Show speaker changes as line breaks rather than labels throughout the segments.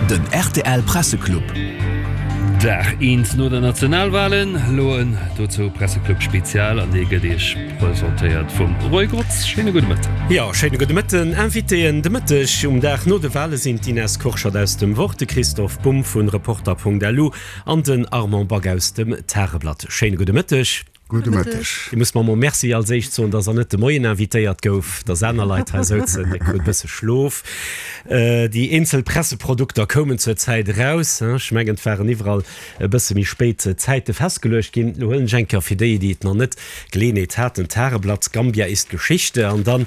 Den rtl Presseclub.
Dag eent no der Nationalwalen, elo en dozou Presseclub Spezial an dee gëtt Iech presentéiert vum Roy Grotz. Schéine gudde Mëtten.
Jo, schéine gudde Mëtten. Invitéen de Mëtteg um Dag no de Wale sinn d'Ines Kurschat aus dem Wort, de Christoph Bumb vun Reporter.lu an den Armand Back aus dem Tageblatt. Schéine gudde Mëtteg.
Gudde Mëtteg.
Dir musst mer emol Merci als éischt soen, dass Der net de Moien invitéiert gouf, dass aner Leit hei souzen. Dir krut e bësse Schlof. Déi eenzel Presseprodukter koumen zur Zäit eraus. Ech mengen, et waren iwwerall e bësse méi spéit Zäite festgeluecht ginn. Elo huelen ech eng Kéier fir déi, déi et nach net Geleeënheet haten, d'Tageblatt, Gambia ist Geschichte. An dann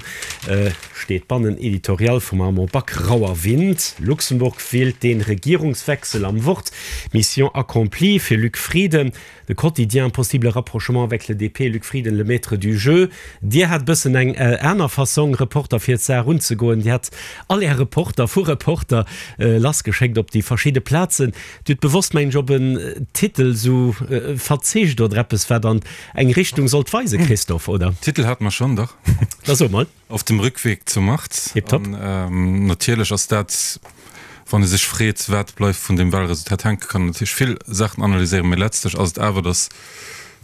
steet bannen Editorial vum Armand Back, Rauer Wind, Luxemburg wählt den Regierungswechsel am Wort, Mission accomplie fir Luc Frieden. De Quotidien, Possible rapprochement avec le DP, Luc Frieden, le maître du jeu. Dir hat e bëssen eng aner Fassong, Reporter fir d'Saach unzegoen. Dir hat all Är Reporter vu Reporter lassgeschéckt op déi verschidde Plazen. Dir hutt bewosst, mengen ech, op en Titel esou verzicht oder eppes, wat an eng Richtung sollt weisen, Christophe, oder?
Titel hate mer schonn, dach.
Da so mol.
Auf dem Rückweg zur Macht.
Tipptopp.
An natierlech ass dat, wann ee sech freet, wat bleift vun deem Wahlresultat hänken, kann een natierlech vill Saachen analyséieren, mee letztlech ass et awer, datt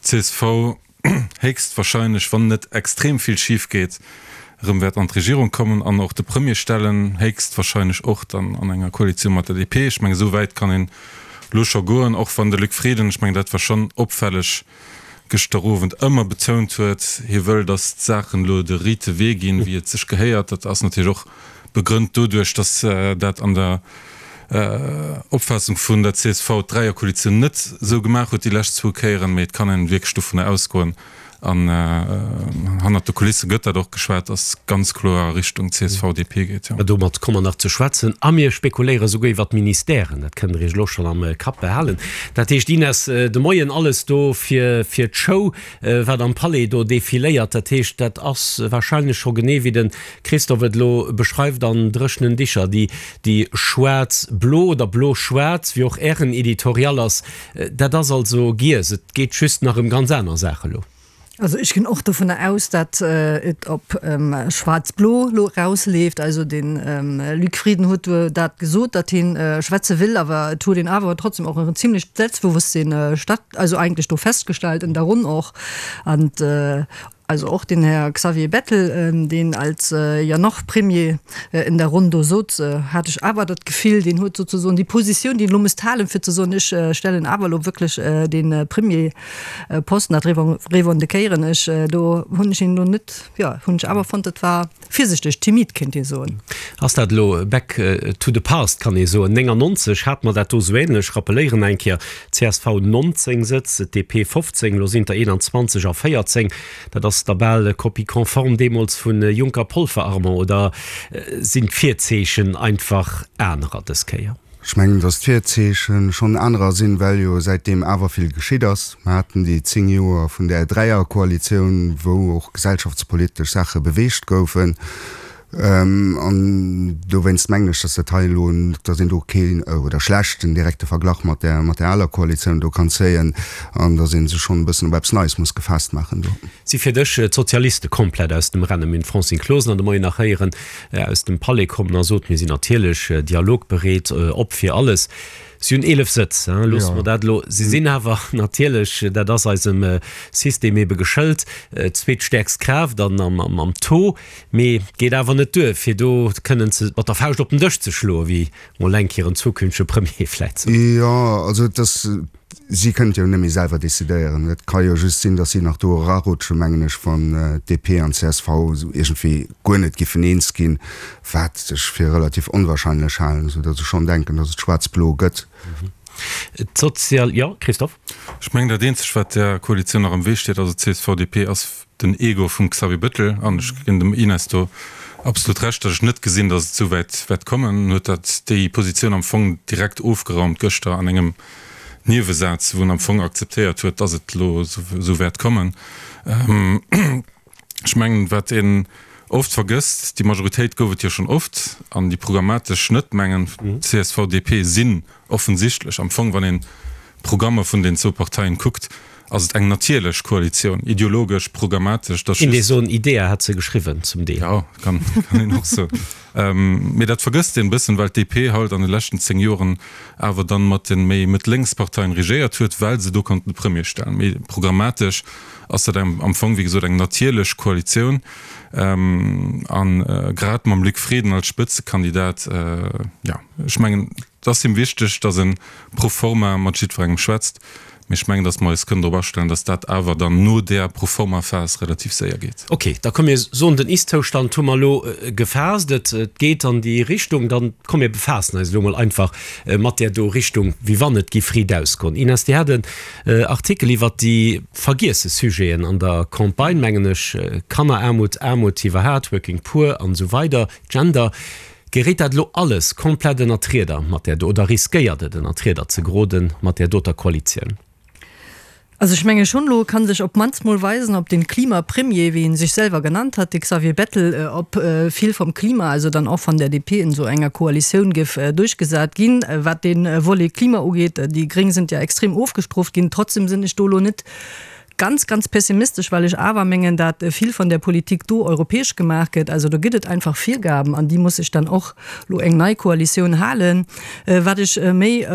d'CSV héchstwahrscheinlech, wann net extrem vill schif geet, erëm wäert an d'Regierung kommen an och de Premier stellen, héchstwahrscheinlech och dann an enger Koalitioun mat der DP. Ech mengen, esou wäit kann een elo scho goen, och wann de Luc Frieden, ech mengen, dat war schonn opfälleg, gëschter Owend ëmmer betount huet, hie wëll, datt d'Saachen elo de riite Wee ginn, wéi et sech gehéiert. Dat ass natierlech och begrënnt doduerch, datt dat an der Opfaassung vun der csv d'Dräierkoalitioun net esou gemaach huet déi lescht zwou Kéieren. Mee et kann een wierklech dovunner ausgoen, an hannert de Kulisse gëtt dat och geschwat, datt ganz kloer a Richtung CSV-DP geet, jo.
Domat komme mer nach ze schwätzen a mir spekuléiere souguer iwwer d'Ministèren. Dat kënnt Der Iech elo schonn am Kapp behalen. Dat heescht, Ines, de Moien alles do fir fir d'Show, wat am Palais do defiléiert. Dat heescht, dat ass warscheinlech scho genee wéi de Christophe et elo beschreift an dréchenen Dicher, déi déi schwaarz-blo oder blo-schwaarz, wéi och Ären Editorial ass, Dat ass also giess. Et geet just nach ëm ganz aner Saache lo.
Also ech ginn och dovunner aus, datt et op schwaarz-blo lo erausleeft. Also de Luc Frieden huet dat gesot, datt hie schwätze will, awer et huet een awer trotzdem och en zimlecht Selbstbewosstsinn statt, also eigentlech do festgestellt en der Ronn och. An Also och den Här Xavier Bettel, deen als ja noch Premier in der Ronn do sot, hat ech awer dat Gefill, deen huet souzesoen déi Positioun, déi en elo misst halen, fir ze soen, ech stellen awer elo wierklech dee Premierposten, dat revendiquéieren ech, do hunn ech een elo net, jo, hunn ech awer fonnt, dat war virsichteg, timid kéint ee soen.
Ass dat elo back to the past, kann ee soen. 99 hate mer dat do esou ähnlech, rappeléieren eng Kéier, Csv 19 Sëtz, DP 15, elo sinn der 21 a 14. Dat ass da bal Copie conforme deemools vu Juncker-Polfer, Armand, oder sinn d'Virzeechen einfach anerer dës Kéier?
Ech mengen, datt d'Virzeeche schonn anerer sinn, well jo säitdeem awer vill geschitt ass. Mer haten déi 10 Joer vun där Dräierkoalitioun, wou och gesellschaftspolitesch Saache beweegt goufen. An dowéinst mengen ech, datt dat hei elo, datt een do keen oder schlecht en direkte Verglach mat där, mat där aler Koalitioun do kann zéien an datt ee sech schonn e bëssen op eppes Neies muss gefaasst maachen do.
Si fir dech d'Sozialiste komplett aus dem Rennen? Mir hunn d'Francine Closener de Moien nach héieren aus dem Palais kommen a sot, mir sinn natierlech dialogbereet, op fir alles. Si hunn 11 Sëtz, loosse mer dat elo. Si sinn awer natierlech, dat ass eisem System ebe geschëlt, d'zweetstäerkst Kraaft an am Taux. Mee et geet awer net duer, fir do kënnen ze mat der Fauscht op den Dësch ze schloen, wéi mol eng Kéier en zukünftege Premier vläit
sot. Jo, also et ass, si kënnen et jo net méi selwer decidéieren. Et ka jo just sinn, datt si nach do erarutschen, mengen ech, wann DP an csv esou iergendwéi guer net giffen eens ginn, wat ech fir relativ onwahrscheinlech halen, esou datt ech schonn denken, datt et schwaarz-blo gëtt.
D'Sozial, jo, Christophe?
Ech mengen, dat eenzegt, wat där Koalitioun nach am Wee steet, also CSV-DP, ass den Ego vum Xavier Bettel, an ech ginn dem Ines do absolut Recht, datt ech net gesinn, datt et esou wäit wäert kommen, huet dat déi Positioun am Fong direkt ofgeraumt gëschter an engem Niewesaz, wou en am Fong akzeptéiert huet, datt et elo esou wäert kommen. Ech mengen, wat een oft vergësst, déi Majoritéit gouf et jo schonn oft, an déi programmatesch net, mengen csv, DP sinn offensichtlech am Fong, wann een. d'Programmer vun den zwou Parteien kuckt, ass et eng natierlech Koalitioun, ideologesch, programmatesch.
Dass just. Soen, Idea hat se geschriwwen zum Deel.
Jo, kann een och soen. Mee dat vergësst een e bëssen, well d'DP halt an de leschten 10 Joren awer dann mat de méi mëtt-lénks Parteien regéiert huet, well se do konnten de Premier stellen. Mee programmatesch ass dat am Fong, wéi gesot, eng natierlech Koalitioun. An grad mam Luc Frieden als Spëtzekandidat, jo, ech mengen, et ass him wichteg, datt e pro forma mat jiddwerengem schwätzt. Mee ech mengen, datt mer eis kënnen drop astellen, datt dat awer dann no där Pro-forma-Phas relativ séier geet.
Ok, da komm mir soen, den Ist-Zoustand hu mer elo gefaasst, et geet an déi Richtung. Dann komm mir befaassen eis elo mol einfach mat där do Richtung, wéi wann et giff riit ausgoen. Ines, Dir hat en Artikel iwwert déi vergiesse Sujeten an der Campagne, mengen ech, Kanneraarmut, Aarmut iwwerhaat, Working Poor an esou weider, Gender. Geréit dat elo alles komplett ënnert d'Rieder mat där do, oder riskéiert et ënnert d'Rieder ze geroden mat där doter Koalitioun?
Also ech menge schonn, elo ka sech op d'mannst mol weisen, ob den Klimapremier, wéi en sech selwer genannt hat, de Xavier Bettel, ob vill vom Klima, also dann och van der DP in esou enger Koalitioun géif duerchgesat ginn. Wat de Volet Klima ugeet, déi Gréng sind ja extrem ofgestrooft ginn, trotzdem sinn ech do elo net Ganz, ganz pessimistesch, well ech awer mengen, dat vill van där Politik do europäesch gemaach gëtt. Also do gëtt et einfach Virgaben, an déi muss sech dann och lo eng nei Koalitioun halen. Wat ech méi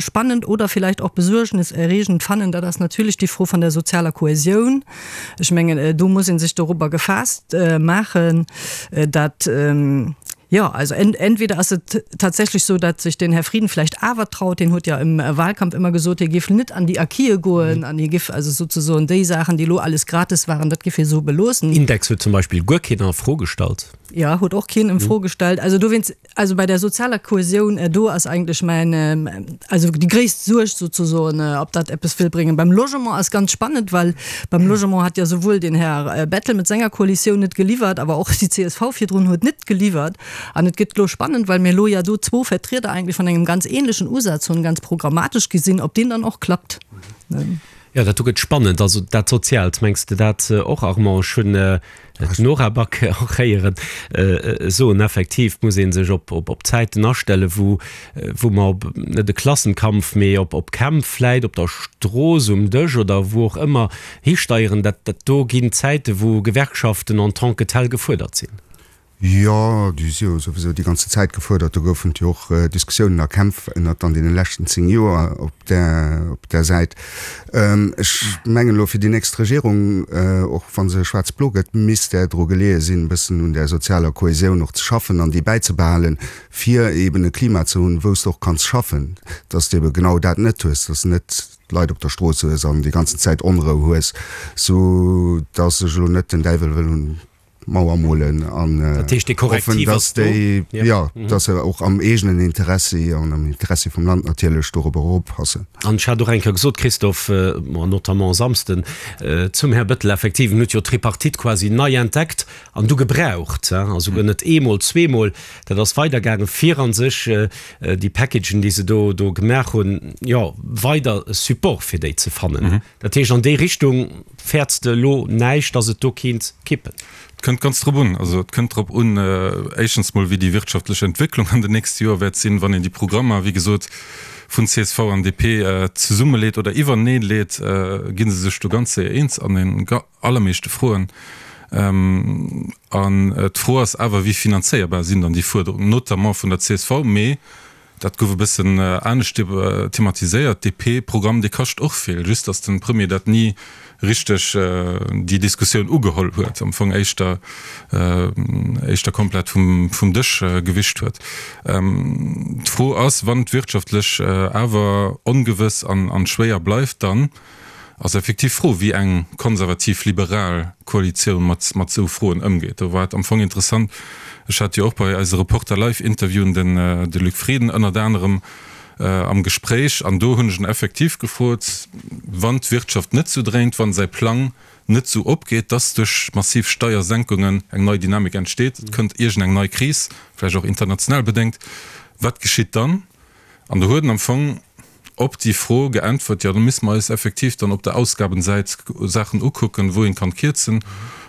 spannend oder vielleicht och besuergneserregend fannen, dat ass natierlech déi Fro van der sozialer Kohäsioun. Ech mengen, do muss ee sech dorobber gefaasst maachen, dat, Jo, also entweder ass et tatsächlech sou, datt sech den Här Frieden vläicht awer traut, hien huet jo im Wahlkampf ëmmer gesot, hie géif net an déi Acquise goen an hie géif also souzesoen déi Saachen, déi elo alles gratis waren, dat géif hie sou beloossen.
Index huet zum Beispill guer keen a Fro gestallt.
Jo, huet och keen en Fro gestallt. Also dowéinst, also bei der sozialer Kohäsioun, do ass eigentlech mäin, also déi gréisst Suerg souzesoen, ob dat eppes wëll bréngen. Beim Logement ass ganz spannend, well beim Logement hat jo souwuel den Här Bettel mat senger Koalitioun net geliwwert, awer och déi csv virdrun huet net geliwwert. An et gëtt elo spannend, well mir elo ja do zwou Vertrieder eigentlech vun engem ganz ähnlechen Usaz hunn, ganz programmatesch gesinn, ob deen dann och klappt.
Jo, dat do gëtt spannend. Also dat Soziaalt, mengs de dat och, Armand? Ech hunn d'Nora Back och héieren soen, effektiv muss ee sech op Zäiten astellen, wou wou mer op, net e Klassenkampf, mee op op Kämpf vläit op der Strooss, um Dësch oder wou och ëmmer histeieren. Dat dat do ginn Zäiten, wou Gewerkschaften en tant que tel gefuerdert sinn.
Jo, déi si jo souwisou déi ganze Zäit gefuerdert. Do goufen et jo och Diskussiounen a Kämpf ënnert an deene leschten 10 Joer op där, op där Säit. Ech mengen elo fir déi nächst Regierung, och wa se schwaarz-blo gëtt, misst där dru geleeë sinn, e bëssen un där sozialer Kohäsioun och ze schaffen an déi bäizebehalen, fir eeben e Klima ze hunn, wou s de och kanns schaffen, dass s de ebe genau dat net hues, dass s de net d'Leit op der Strooss hues an déi ganzen Zäit Onrou hues, sou dass ech elo net den Däiwel wëll un d'Mauer molen an hoffen, dass déi, jo, dass se och am eegenen Interessi an am Interessi vum Land natierlech dorobber eroppassen.
An ech hat och eng Kéier gesot, Christophe, bon, notamment e Samsden, zum Här Bettel, effektiv, en huet jo d'Tripartite quasi nei entdeckt an du gebraucht, a souguer net eemol, zweemol, dat ass weidergaangen, fir a sech déi Packagen, déi se do do gemaach hunn, jo, weider Support fir déi ze fannen. Dat heescht, an déi Richtung fäerts de elo näischt, datt et do kéint kippen?
Et kënnt ganz drop un. Also et kënnt drop un, éischtens mol, wéi déi wirtschaftlech Entwécklung an den nächste Joer wäert sinn. Wann een déi Programmer, wéi gesot, vun csv an DP zesummeleet oder iwwerneeleet, gi se sech do ganz séier eens an den allermeeschte Froen. An d'Fro ass awer, wéi finanzéierbar sinn dann déi Fuerderungen, notamment vun der csv, mee Dat gouf e bëssen anescht thematiséiert. DP-Programm, dee kascht och vill, just datt de Premier dat ni richteg déi Diskussioun ugeholl huet, am Fong éischter éischter komplett vum vum Dësch gewischt huet. D'Fro ass, wann d'wirtschaftlech awer ongewëss an an schwéier bleift, dann ass effektiv d'Fro, wéi eng konservativ-liberal Koalitioun mat mat esou Froen ëmgeet. Do war et am Fong interessant, ech hat jo och bei eise Reporter Live-Interviewen den de Luc Frieden ënnert anerem am Gespréich an do hunn ech en effektiv gefrot, wann d'Wirtschaft net sou dréint, wann säi Plang net sou opgeet, dass duerch massiv Steiersenkungen eng nei Dynamik entsteet, et kënnt iergend eng nei Kris, vläicht och international bedéngt, wat geschitt dann? An do huet en am Fong op déi Fro geäntwert, jo, da misste mer eis effektiv dann op der Ausgabensäit Saachen ukucken, wou een kann kierzen.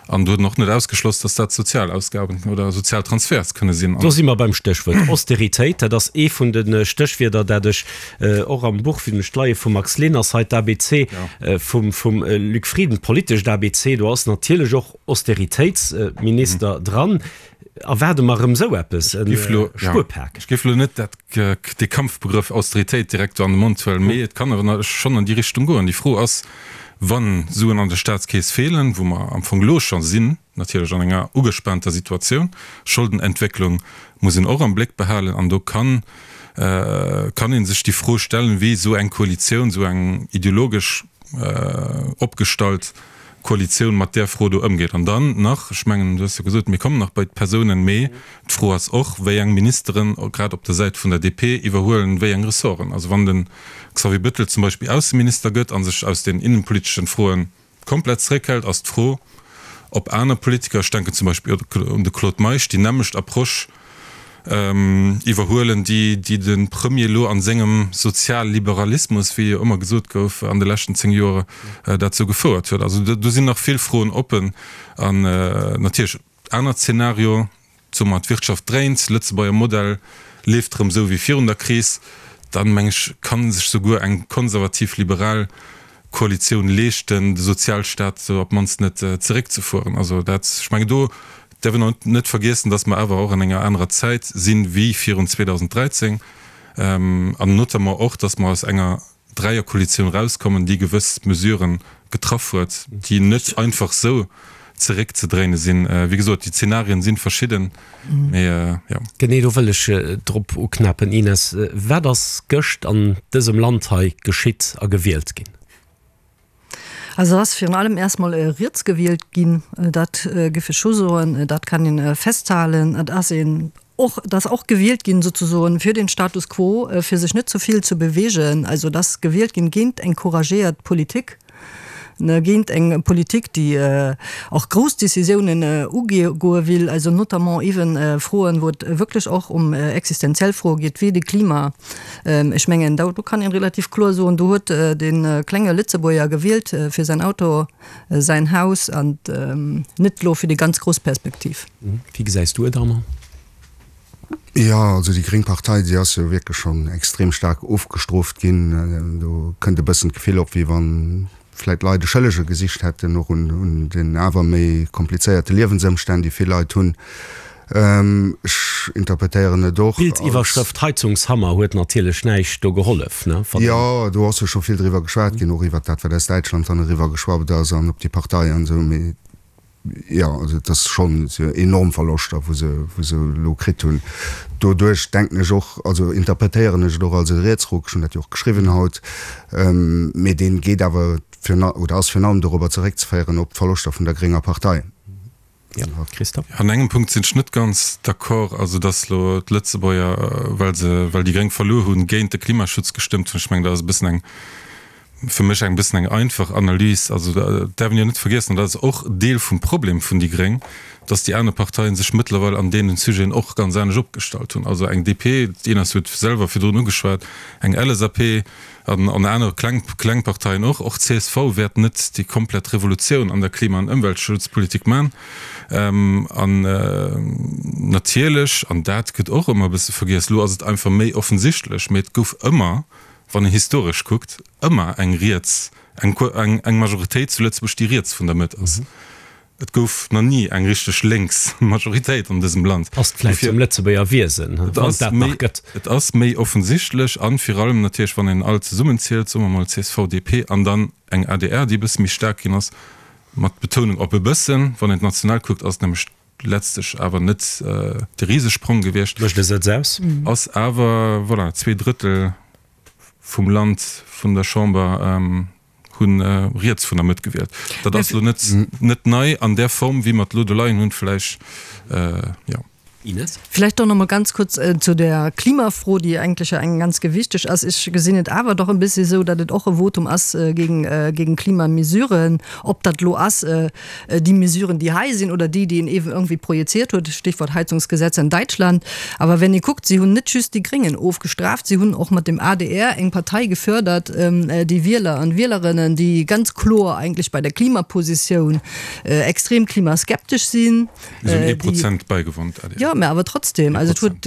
An do huet en och net ausgeschloss, datt dat sozial Ausgaben oder sozial Transferts kënne sinn.
Do si mer beim Stéchwuert Austeritéit. Dat ass ee vun de Stéchwierder, dat ech och am Buch, wéi ech d'Leie vum Max Leners hei, d'ABC vum Luc Frieden, d'politescht ABC, do ass natierlech och Austeritéitsminister dran. Erwaarde mer erëm esou eppes, e
Spuerpak? Ech géif elo net dat, dee Kampfbegrëff Austeritéit direkt do an de Mond huelen, mee et kann awer schonn an déi Richtung goen. Déi Fro ass, Wa Suen an der Staatskeess feelen, wou mer am Fong elo scho sinn, natierlech an enger ugespaanter Situatioun, Scholdenentwécklung muss een och am Bléck behalen, an do kann kann ee sech déi Fro stellen, wéi esou eng Koalitioun, esou eng ideologesch opgestallt Koalitioun mat där Fro do ëmgeet. An dann nach, ech mengen, du hues jo gesot, mir kommen nach bei d'Persounen, mee d'Fro ass och, wéi eng Ministeren, grad op der Säit vun der DP, iwwerhuelen wéi eng Ressorten. Also wann de Xavier Bettel zum Beispill Ausseminister gëtt a sech aus den innenpoliteschen Froen komplett zeréckhält, ass d'Fro, ob aner Politiker, ech denken zum Beispill un de Claude Meisch, déi nämmlecht Approche iwwerhuelen, déi déi de Premier elo a sengem Sozialliberalismus, wéi jo ëmmer gesot gouf an de leschten 10 Joer, dat sou gefouert huet. Also do sinn nach vill Froen oppen an natierlech anert Zeenario, Soe mer, d'Wirtschaft dréint, Lëtzebuerger Modell leeft erëm esou wéi virun der Kris, dann, meng ech, ka sech souguer eng konservativ-liberal Koalitioun leeschten, de Sozialstaat op d'mannst net zeréckzefueren. Also dat, ech mengen, do däerf een och net vergiessen, datt mer awer och an enger anerer Zäit sinn wéi virun 2013 an notamment och, datt mer aus enger Dräierkoalitioun erauskommen, déi gewëss Mesuren getraff huet, déi net einfach esou zeréckzedréine sinn. Wéi gesot, déi Zenarien si verschidden, mee jo.
Genee do wëll ech drop uknäppen, Ines. Wat ass gëscht an dësem Land hei geschitt a gewielt ginn?
Also ass virun allem erstmol riets gewielt ginn, dat géif ech scho soen, dat kann een festhalen. Et ass een och, et ass och gewielt ginn souzesoen fir den Status quo, fir sech net ze vill ze bewegen. Also et ass gewielt ginn géint eng couragéiert Politik, géint eng Politik, déi och grouss Décisiounen ugoe will, also notamment ewen Froen, wou et wierklech och um existenziell Froe geet, wéi de Klima. Ech mengen, do kann een relativ kloer soen, do huet de klenge Lëtzebuerger gewielt fir säin Auto, säin Haus an net elo fir déi ganz grouss Perspektiv.
Wéi gesäis du et, Armand?
Jo, also déi gréng Partei, déi ass jo wierklech schonn extrem staark ofgestrooft ginn. Do kënnt e bëssen d'Gefill op, wéi wann vläit Leit e Schëllege gesicht hätten, och un den awer méi komplizéierte Liewensëmstänn, déi vill Leit hunn. Ech interpretéieren et och als.
D'Bildiwwerschrëft Heizungshammer huet natierlech näischt do gehollef, ne?
Jo, do ass jo scho vill driwwer geschwat ginn, och iwwert dat, wat aus Däitschland dann eriwwer geschwappt ass an op déi Partei an esou. Mee Jo, also et ass schonn enorm Verloschter, wou se, wou se elo kritt hunn. Doduerch denken ech och, also interpretéieren ech et och als e Rietsruck, ech hunn dat jo och geschriwwen haut, mee dee geet awer virun, oder ass virun allem dorobber zeréckzeféieren op d'Verloschter vun der grénger Partei.
Ja, Christophe?
An engem Punkt sinn ech net ganz d'accord, also datt elo d'Lëtzebuerger, well se, well déi Gréng verluer hunn, géint de Klimaschutz gestëmmt hunn. Ech mengen, dat ass e bëssen eng, fir mech eng bëssen eng einfach Analys. Also et däerf een jo net vergiessen, an dat ass och Deel vum Problem vun déi gréng, datt déi aner Parteien sech mëttlerweil an deenen Sujeten och ganz anescht opgestallt hunn. Also eng DP, d'Ines huet selwer virdrun ugeschwat, eng LSAP an an aner kleng kleng Parteien och, och csv wäert net déi komplett Revolutioun an der Klima an Ëmweltschutzpolitik man. An natierlech, an dat gëtt och ëmmer e bësse vergiess, elo ass et einfach méi offensichtlech, mee et gouf ëmmer, wann een historesch kuckt, ëmmer eng riets, eng, eng Majoritéit zu Lëtzebuerg, déi riets vun der Mëtt ass. Et gouf nach ni eng richteg lénks Majoritéit an dësem Land.
Passt vläicht zum Lëtzebuerger Wiesen, wann et dat nach gëtt.
Et ass méi offensichtlech an vir allem natierlech, wann een all zesummenzielt, soe mer mol csv, DP an dann eng adr, déi e bësse méi staark ginn ass, mat Betounung op e bëssen, wann een national kuckt, ass et nämlech letztlech awer net de Risesprong gewiescht.
Mécht e Sëtz aus.
Ass awer, voilà, 2/3 vum Land, vun der Chamber hu riets vun der Mëtt gewielt. Dat ass elo net, net nei an där Form, wéi mer et elo do leien hunn, vläicht, jo.
Ines.
Vläicht doch nach mol ganz kurz zu der Klimafro, déi eigentlech jo eng ganz gewichteg ass. Ech gesinn et awer doch e bëssi esou, datt et och e Votum ass géing géing Klimamesuren, ob dat elo ass déi Mesuren, déi hei sinn, oder déi, déi een eeben irgendwie projiziert huet, Stichwort Heizungsgesetz in Deutschland. Awer wenn ee kuckt, si hunn net just déi Gréngen ofgestraft, si hunn och mat dem adr eng Partei gefördert, déi Wieler an Wielerinnen, déi ganz kloer eigentlech bei der Klimapositioun extrem klimaskeptesch sinn.
Si hunn ee Prozent bäigewonn, d'ADR.
Jo, mä awer trotzdem, also et huet,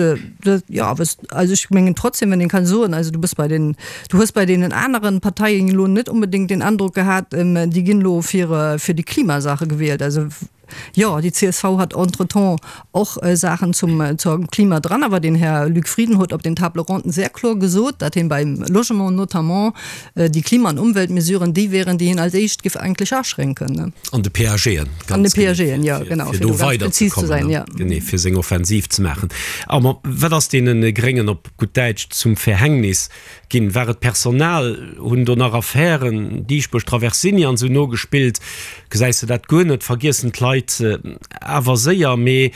jo, awer also ech mengen trotzdem, wenn een kann soen, also du bass bei den, du hues bei deenen aneren Parteien elo net onbedéngt den Androck gehat, déi ginn elo fir, fir déi Klimasache gewielt. Also jo, déi csv hat entretemps och Saachen zum, zum Klima dran, awer den Här Luc Frieden huet op den Table ronden sehr kloer gesot, datt hien beim Logement notamment Déi Klima an Umweltmesuren, déi wären, déi hien als éischt giff eigentlech aschränken.
An de PAGen,
An de PAGen, jo, genau,
fir do weiderzekommen, genee, fir seng Offensiv ze maachen. Armand, wat ass deene Gréngen op gutt Däitsch zum Verhängnis ginn? War et d'Personal? Hunn do nach Affären, Dieschbourg, Traversini an esou nogespillt? Gesäis de dat guer net? Vergiessen d'Leit awer séier? Mee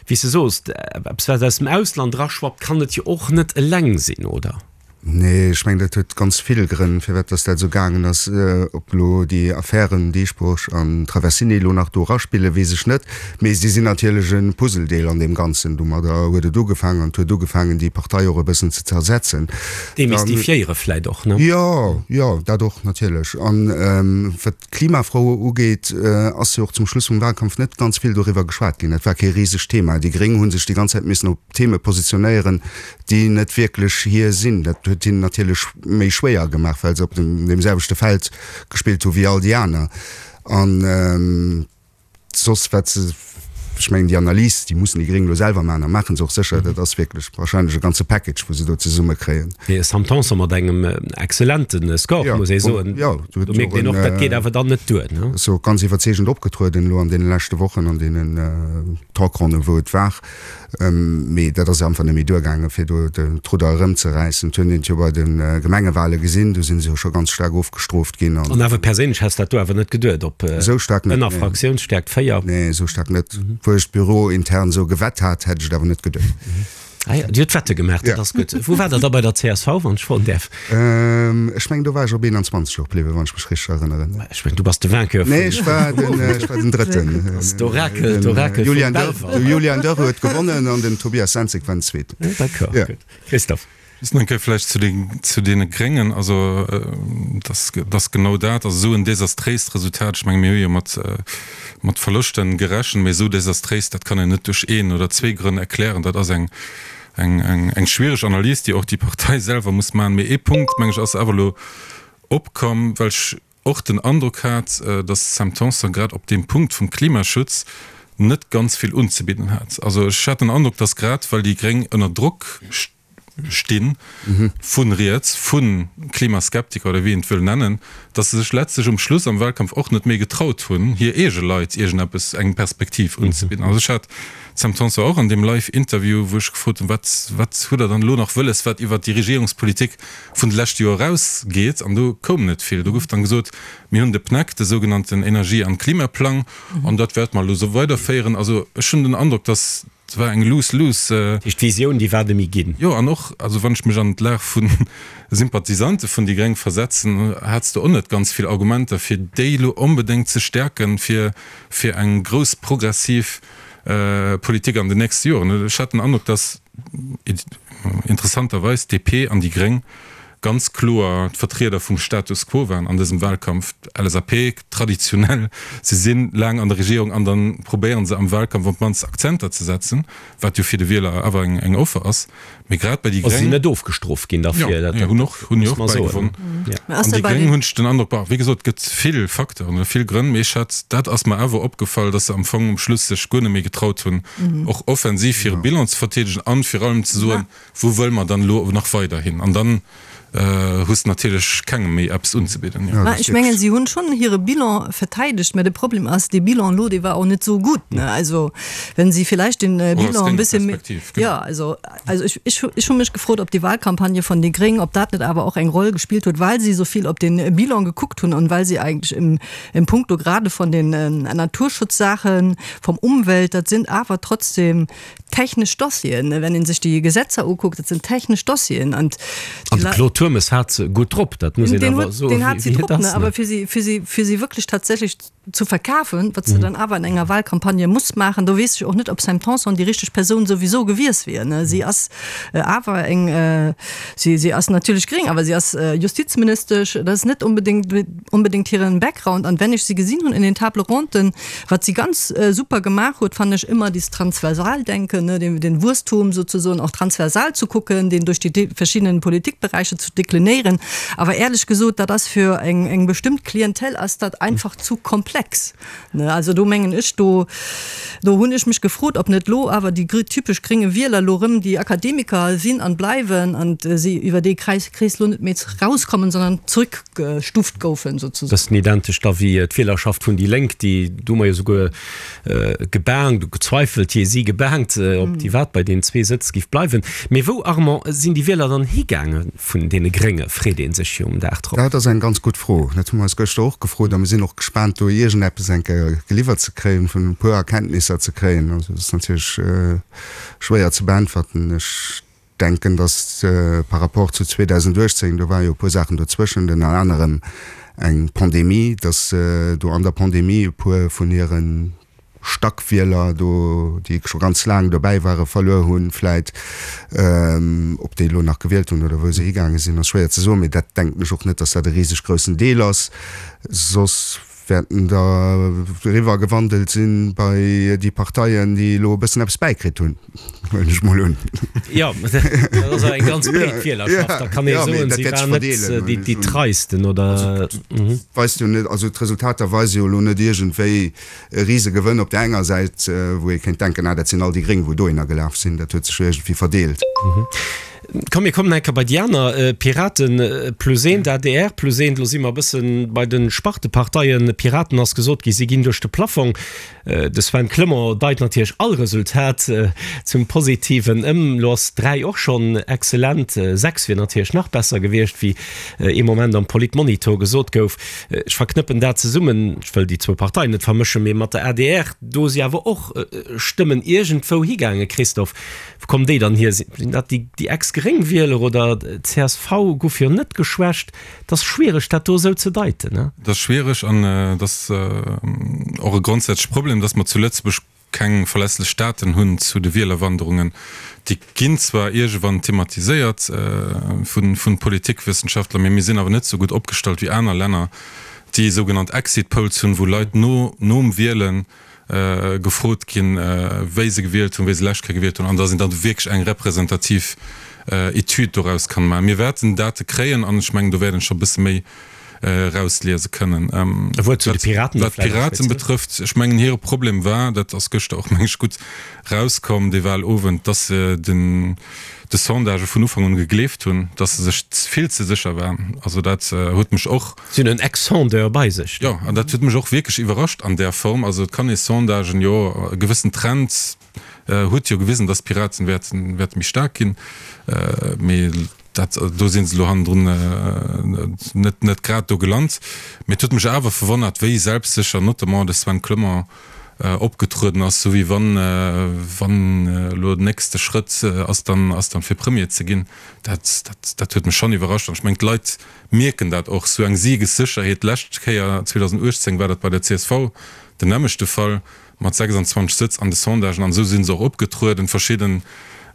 wéi s de soos, eppes wat aus dem Ausland eraschwappt, kann et jo och net eleng sinn, oder?
Nee, ech mengen, dat huet ganz vill Grënn, firwat dass dat esou gaangen ass. Ob elo déi Affären Dieschbourg an Traversini elo nach do eraspillen, weess ech net. Mee si sinn natierlech e Puzzledeel an deem Ganzen. Domadder huet et ugefaangen an et huet ugefaangen, déi Partei och e bëssen ze zersetzen.
Demystifiéiere vläit och, ne?
Jo, jo, dat och natierlech. An wat d'Klimafro ugeet, ass jo och zum Schluss vum Wahlkampf net ganz vill doriwwer geschwat ginn. Dat war kee risegt Thema. Déi Gréng hu sech déi ganz Zäit missen op Theme positionéieren, déi net wierklech hir sinn. Dat huet hinnen natierlech méi schwéier gemaach, well se op deem selwechte Feld gespillt hu wéi all déi aner. An soss wat se, ech mengen déi Analys, déi mussen déi Gréng elo selwer maachen a maache se och sécher, dat ass wierklech wahrscheinlech e ganze Package, wou se do zesummekréien.
De Sam Tanson mat engem exzellente Score, muss ee soen.
Jo,
do mierkt een och, dat geet awer dann net duer, ne?
Ass jo ganz iwwerzeegend opgetrueden elo an deene leschte Wochen an deenen Talkronnen, wou et war. Mee dat ass einfach net méi duergaangen, fir do d'Rudder erëmzeräissen. Et hunn een et jo bei de Gemengewale gesinn, do si se jo scho ganz staark ofgestrooft ginn.
An awer perséinlech häss dat do awer net geduet, op
ënner
Fraktiounsstäerkt 4?
Nee, esou staark net. Obwuel ech d'Büro intern esou gewett hat, hätt ech et awer net geduet.
Ah jo, Dir hutt Wette gemaach, dat ass gutt. Wou waart Der da bei der csv, wann ech froen däerf?
Ech mengen, do war ech op 21 och bliwwen, wann ech mech richteg erënneren.
Ech mengen, du bass de Vainqueur
vun. Nee, ech war den, ech war den Drëtten.
Dat ass d'Orakel, d'Orakel vum
Belval. De Julian Dörr huet gewonnen an den Tobias Senzig war den Zweeten.
D'accord, gutt. Christophe.
Just nach eng Kéier vläicht zu den, zu deene Gréngen. Also, dass, dass genau dat, also esou en desastréist Resultat, ech menge mir hu jo mat, mat Verloschten gerechent, mee esou desastréis, dat kann een net duerch een oder zwee Grënn erklären. Dat ass eng, eng, eng, eng schwiereg Analys, déi och déi Partei selwer muss maachen. Mee ee Punkt, meng ech, ass awer elo opkomm, well ech och den Androck hat, datt d'Sam Tanson grad op deem Punkt vum Klimaschutz net ganz vill unzebidden hat. Also ech hat den Androck, datt grad well déi Gréng ënner Drock sti vu riets, vu Klimaskeptiker oder wéi een et wëll nennen, datt se sech letztlech um Schluss am Wahlkampf och net méi getraut hunn, hir eege Leit iergendeppes, eng Perspektiv unzebidden. Also ech hat d'Sam Tanson och an deem Live-Interview, wou ech gefrot hunn, wat, wat hutt Der dann elo nach wëlles, wat iwwert déi Regierungspolitik vun de leschte Joer eraus geet, an do koum net vill. Do gouf dann gesot, mir hunn de PNEC, de sougenannten Energie an Klimaplang, an dat wäerte mer elo esou weiderféieren. Also ech hunn den Androck, dass et war eng lose-lose.
Dat heescht, d'Visioun, déi war net méi ginn.
Jo, an och, also wann ech mech an d'Lag vu Sympathisante vun déi Gréng versetzen, hats de och net ganz vill Argumenter, fir déi elo onbedéngt ze stäerken, fir fir eng grouss progressiv Politik an den nächste Joren. Ech hat den Androck, dass interessanterweis d'DP an déi Gréng ganz kloer d'Vertrieder vum Status quo waren an dësem Wahlkampf. D'LSAP traditionell, se si laang an der Regierung an da probéiere se am Wahlkampf op d'mannst Akzenter ze setzen, wat jo fir de Wieler awer eng Offer ass. Mee grad bei déi
Gréng. Si sinn net ofgestrooft ginn derfir,
dat hunn och, hunn jo och bäigewonn. An déi Gréng hunn ech den Androck, bon, wéi gesot, et gëtt vill Facteuren oder vill Grënn, mee ech hat, dat ass mer awer opgefall, datt se am Fong um Schluss sech guer net méi getraut hunn, och offensiv hire Bilan ze verteedegen an vir allem ze soen, wou wëlle mer dann elo nach weider hin? An dann. Hues natierlech kengem méi eppes unzebidden, jo.
Mä ech mengen, si hunn schonn hire Bilan verteidegt, mä de Problem ass, dee Bilan elo, dee war och net esou gutt, ne? Also, wenn si villäicht den Bilan e bësse méi, jo, also, also ech, ech, ech hu mech gefrot, ob déi Wahlcampagne vun déi Gréng, ob dat net awer och eng Roll gespillt huet, well si esou vill op den Bilan gekuckt hunn an well si eigentlech im, im Punkto grade von den Naturschutzsaachen, vom Umwelt, dat sinn awer trotzdem Technesch Dossieren, wenn ee sech déi Gesetzer ukuckt, dat sinn technesch Dossieren.
An de Claude Turmes hat se gutt drop, dat muss een awer soen.
Deen hat se drop, awer fir si, fir si, fir si wierklech tatsächlech zu verkafen, wat se dann awer an enger Wahlcampagne muss maachen, do weess ech och net, ob Sam Tanson déi richteg Persoun souwisou gewiess wier. Si ass awer eng, si, si ass natierlech gréng, awer si ass Justizministesch, dat ass net onbedéngt, onbedéngt hiren Background. An wenn ech si gesinn hunn in den Table ronden, Wat si ganz super gemaach huet, fannen ech ëmmer, dieses Transversaldenken, ne, den, den Wuesstum sozusoen och transversal zu kucken, deen duerch déi verschiddenen Politikberäicher zu deklinéieren. Awer éierlech gesot, dat ass fir eng, eng bestëmmt Klientel ass dat einfach zu komplex, ne. Also do mengen ech, do, do hunn ech mech gefrot, ob net lo awer déi typesch grénge Wieler lo rëm déi Akademiker sinn an bleiwen an si iwwer dee Kreis, Krees lo net méi rauskommen, sondern zrück. gestuft goufen
souzesoen. Bëssen identesch da wéi d'Wielerschaft vun déi Lénk, déi do hu mer jo souguer gebaangt, gezweifelt, jee si gebaangt, ob déi wat bei deenen zwee Sëtz giff bleiwen. Mee wou, Armand, sinn déi Wieler dann higaange vun deene Grénge, freet ee sech jo um Dag drop.
Dat ass eng ganz gutt Fro. Dat hu mer eis gëschter och gefrot a mir sinn och gespaant do iergendeppes eng Kéier geliwwert ze kréien, vun e puer Erkenntnisser ze kréien. Also dat ass natierlech schwéier ze beäntwerten. Ech denken, datt par rapport zu 2018, do ware jo e puer Saachen dozwëschent, ënner anerem eng Pandemie, datt do an der Pandemie e puer vun hire Stackwieler do, déi scho ganz laang dobäi ware, verluer hunn vläit. Ob déi elo nach gewielt hunn oder wou se higaange sinn, ass schwéier ze soen, mee dat denken ech och net, datt dat e riseg groussen Deel ass. Soss wäerten der eriwwer gewandelt sinn bei déi Parteien, déi elo e bëssen eppes bäikritt hunn, huelen ech mol un.
Jo, dat ass awer eng ganz breet Wielerschaft, da kann ee soen, si waren net déi treisten, oder?
Weist jo net, also d'Resultater weise jo elo net iergendwéi e Risegewënn op där enger Säit, wou ee kéint denken, ah dat sinn all déi Gréng, wou dohinner gelaf sinn. Dat huet sech jo iergendwéi verdeelt.
Komm mir kommen eng Kéier bei déi aner, Piraten plus eent, adr plus eent. Elo si mer e bësse bei de Sparteparteien. Piraten ass gesot gi, si ginn duerch de Plaffong. De Sven Clement deit natierlech all Resultat zum Positiven ëm. Elo ass 3 och schonn excellent, 6 wier natierlech nach besser gewiescht, wéi ee Moment am Politmonitor gesot gouf. Ech verknëppen dat zesummen, ech wëll déi zwou Parteien net vermëschen, mee mat der adr, do si awer och Stëmmen iergendwou higaangen, Christophe. Wou kommen déi dann hier? Sinn dat déi Ex-Gréng-Wieler oder csv guff jo net geschwächt. Et ass schwiereg dat do esou ze deiten, ne?
Et ass schwiereg an et ass och e grondsätzleche Problem, dass mer zu Lëtzebuerg keng verlässlech Daten hunn zu de Wielerwanderungen. Déi ginn zwar iergewann thematiséiert vu Politikwëssenschaftler, mee mir sinn awer net esou gutt opgestallt wéi aner Länner, déi sougenannt Exit Polls hunn, wou Leit no nom Wielen gefrot ginn, wéi se gewielt hunn, wéi se lescht Kéier gewielt hunn, an dass een dann wierklech eng representativ Etüd doraus kann maachen. Mir wäerten Date kréien an ech mengen, do wäert een scho e bësse méi erausliese kënnen.
E Wuert zu de Piraten
nach vläicht. Wat d'Piraten betrëfft, ech mengen, hire Problem war, dat ass gëschter och, meng ech, gutt rauskomm, dee Wahlowend, dass se den de Sondagë vun Ufank un gegleeft hunn, dass se sech vill ze sécher waren. Also dat huet mech och.
Si hunn en Ex-Sondeur bei sech.
Jo, an dat huet mech och wierklech iwwerrascht an där Form. Also et kann ee Sondagen, jo, e gewëssen Trend huet jo gewisen, dass d'Piraten wäerten, wäerte méi staark ginn, mee dat, do si se elo hannendrun net, net grad do gelant. Mee et huet mech awer verwonnert, wéi selbstsécher notamment de Sven Clement opgetrueden ass, sou wéi wann, wann elo den nächste Schrëtt ass dann, ass dann fir Premier ze ginn. Dat, dat, dat huet mech schonn iwwerrascht an ech mengen d'Leit mierken dat och, sou eng Siegessécherheet. D'lescht Kéier, 2018, war dat bei der csv den nämmlechte Fall mat 26 Sëtz an de Sondagen an esou si se och opgetrueden. Verschidden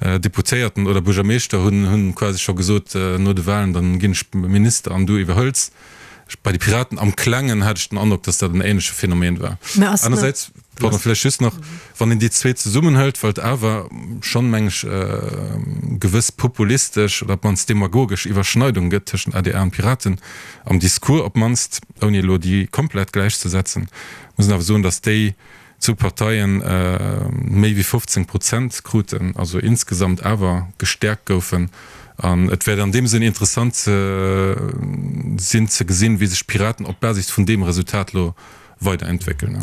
Deputéierten oder Buergermeeschter hunn, hunn quasi scho gesot no de Wahlen, dann ginn ech Minister an du iwwerhëls. Bei de Piraten am Klengen hat ech den Androck, dass dat en ähnleche Phänomen war. Anersäits, pardon, vläicht just nach, wann een déi zwee zesummenhëlt, well et awer schonn, meng ech, gewëss populistesch oder op d'mannst demagogesch Iwwerschneidung gëtt tëschent adr an Piraten am Discours op d'mannst, ouni elo déi komplett gläichzesetzen, muss een awer soen, dass déi zwou Parteien méi wéi 15 Prozent kruten, also insgesamt awer gestäerkt goufen. An et wäert an deem Sënn interessant sinn ze gesinn, wéi sech d'Piraten op Basis vun deem Resultat elo weiderentwéckelen.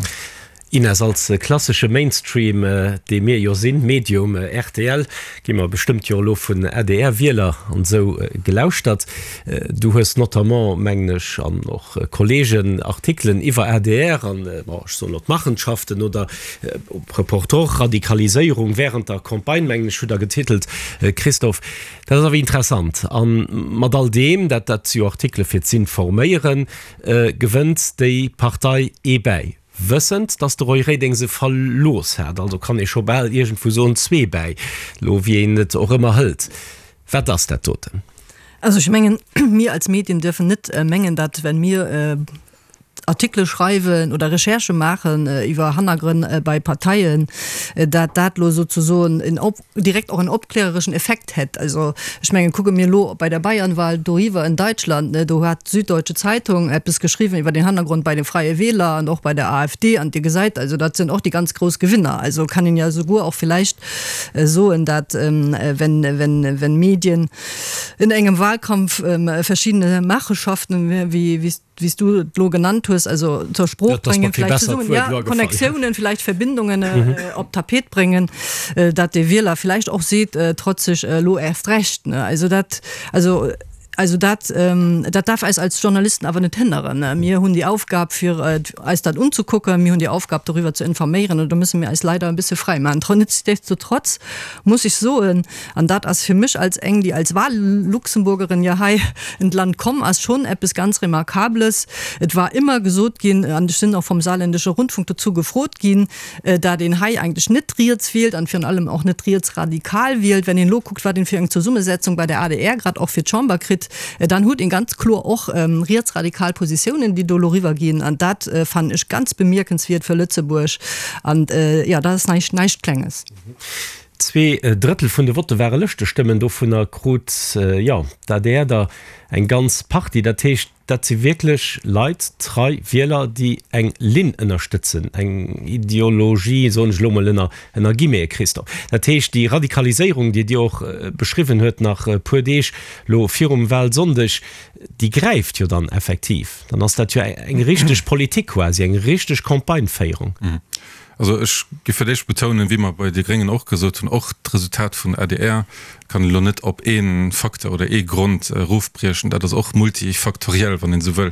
Ines, als klassesche Mainstream, dee mir jo sinn, Medium, rtl, gi mer bestëmmt jo elo vun ADR-Wieler an esou gelauschtert. Du hues notamment, mengen ech, an och Kollegen, Artikelen iwwer adr an, bon, ech soen elo d'Machenschaften oder Reportor, Radikaliséierung während der Campagne, mengen ech, hutt Der getitelt, Christophe. Dat ass awer interessant. A mat all deem, dat dat si jo Artikele fir z'informéieren, gewënnt déi Partei ee bäi. Wëssend, datt de Roy Reding se verlooss hat, also kann ee scho bal iergendwou soen, zwee bäi, lo wéi een et och ëmmer hëlt. Wat ass dat doten?
Also ech mengen, mir als Medien dürfen net mengen, datt wenn mir Artikele schreiwen oder Recherchë maachen iwwer Hannergrënn bei Parteien, datt dat lo souzesoen en direkt och en opklärereschen Effekt hätt. Also ech mengen, kucke mir elo bei der Bayernwahl doriwwer in Deutschland, ne, do hat d'Süddeutsche Zeitung eppes geschriwwen iwwer den Hannergrond bei de Freie Wähler an och bei der AfD an Dir gesäit, also dat sinn och déi ganz grouss Gewinner. Also kann een ja souguer och villäicht soen, dat wenn, wenn, wenn Medien in engem Wahlkampf verschiedene Machenschaften, wéi, wéi wéi s du et elo genannt hues, also zur Sprooch bréngen, vläicht zesummen, ja, Connectiounen, vläicht Verbindungen op d'Tapet bréngen, dat de Wieler vläicht och seet, trotzeg elo erst recht, ne. Also dat, also, also dat, dat darf eis als Journalisten awer net hënneren. Mir hunn déi Aufgab, fir eis dat unzekucken, mir hunn déi Aufgab, doriwwer ze informéieren, an do musse mir eis leider e bësse fräi maachen. Nichtsdestotrotz muss ech soen, An dat ass fir mech als eng, déi als Wahl-Luxemburgerin jo hei en d'Land komm ass, schonn eppes ganz Remarkables. Et war ëmmer gesot ginn, an ech sinn och vom Saarländische Rundfunk dozou gefrot ginn, dat een hei eigentlech net riets wielt an virun allem och net rietsradikal wielt. Wenn een elo kuckt, wat een fir eng Zesummesetzung bei der adr grad och fir d'Chamber kritt, dann huet een ganz kloer och rietsradikal Positiounen, déi do elo eriwwerginn. An dat fannen ech ganz bemierkenswiert fir Lëtzebuerg. An jo, dat ass näischt, näischt Klenges.
Zweedrëttel vun de Votte ware Lëschtestëmmen, dovunner krut, jo, d'ADR der eng ganz Partie. Dat heescht, dat si wierklech Leit, trei Wieler, déi eng Linn ënnerstëtzen, eng Ideologie, soen ech elo mol ënner, ënner Guillemete, Christophe. Dat heescht, déi Radikaliséierung, déi Dir och beschriwwen huet nach e puer Deeg elo virum Wahlsonndeg, déi gräift jo dann effektiv. Dann ass dat jo eng richteg Politik quasi, eng richteg Campagneféierung.
Also ech géif fir d'éischt betounen, wéi mer bei de Gréngen och gesot hunn, och d'Resultat vun adr kann een elo net op ee Facteur oder ee Grond erofbriechen. Dat ass och multifaktoriell, wann een esou wëll.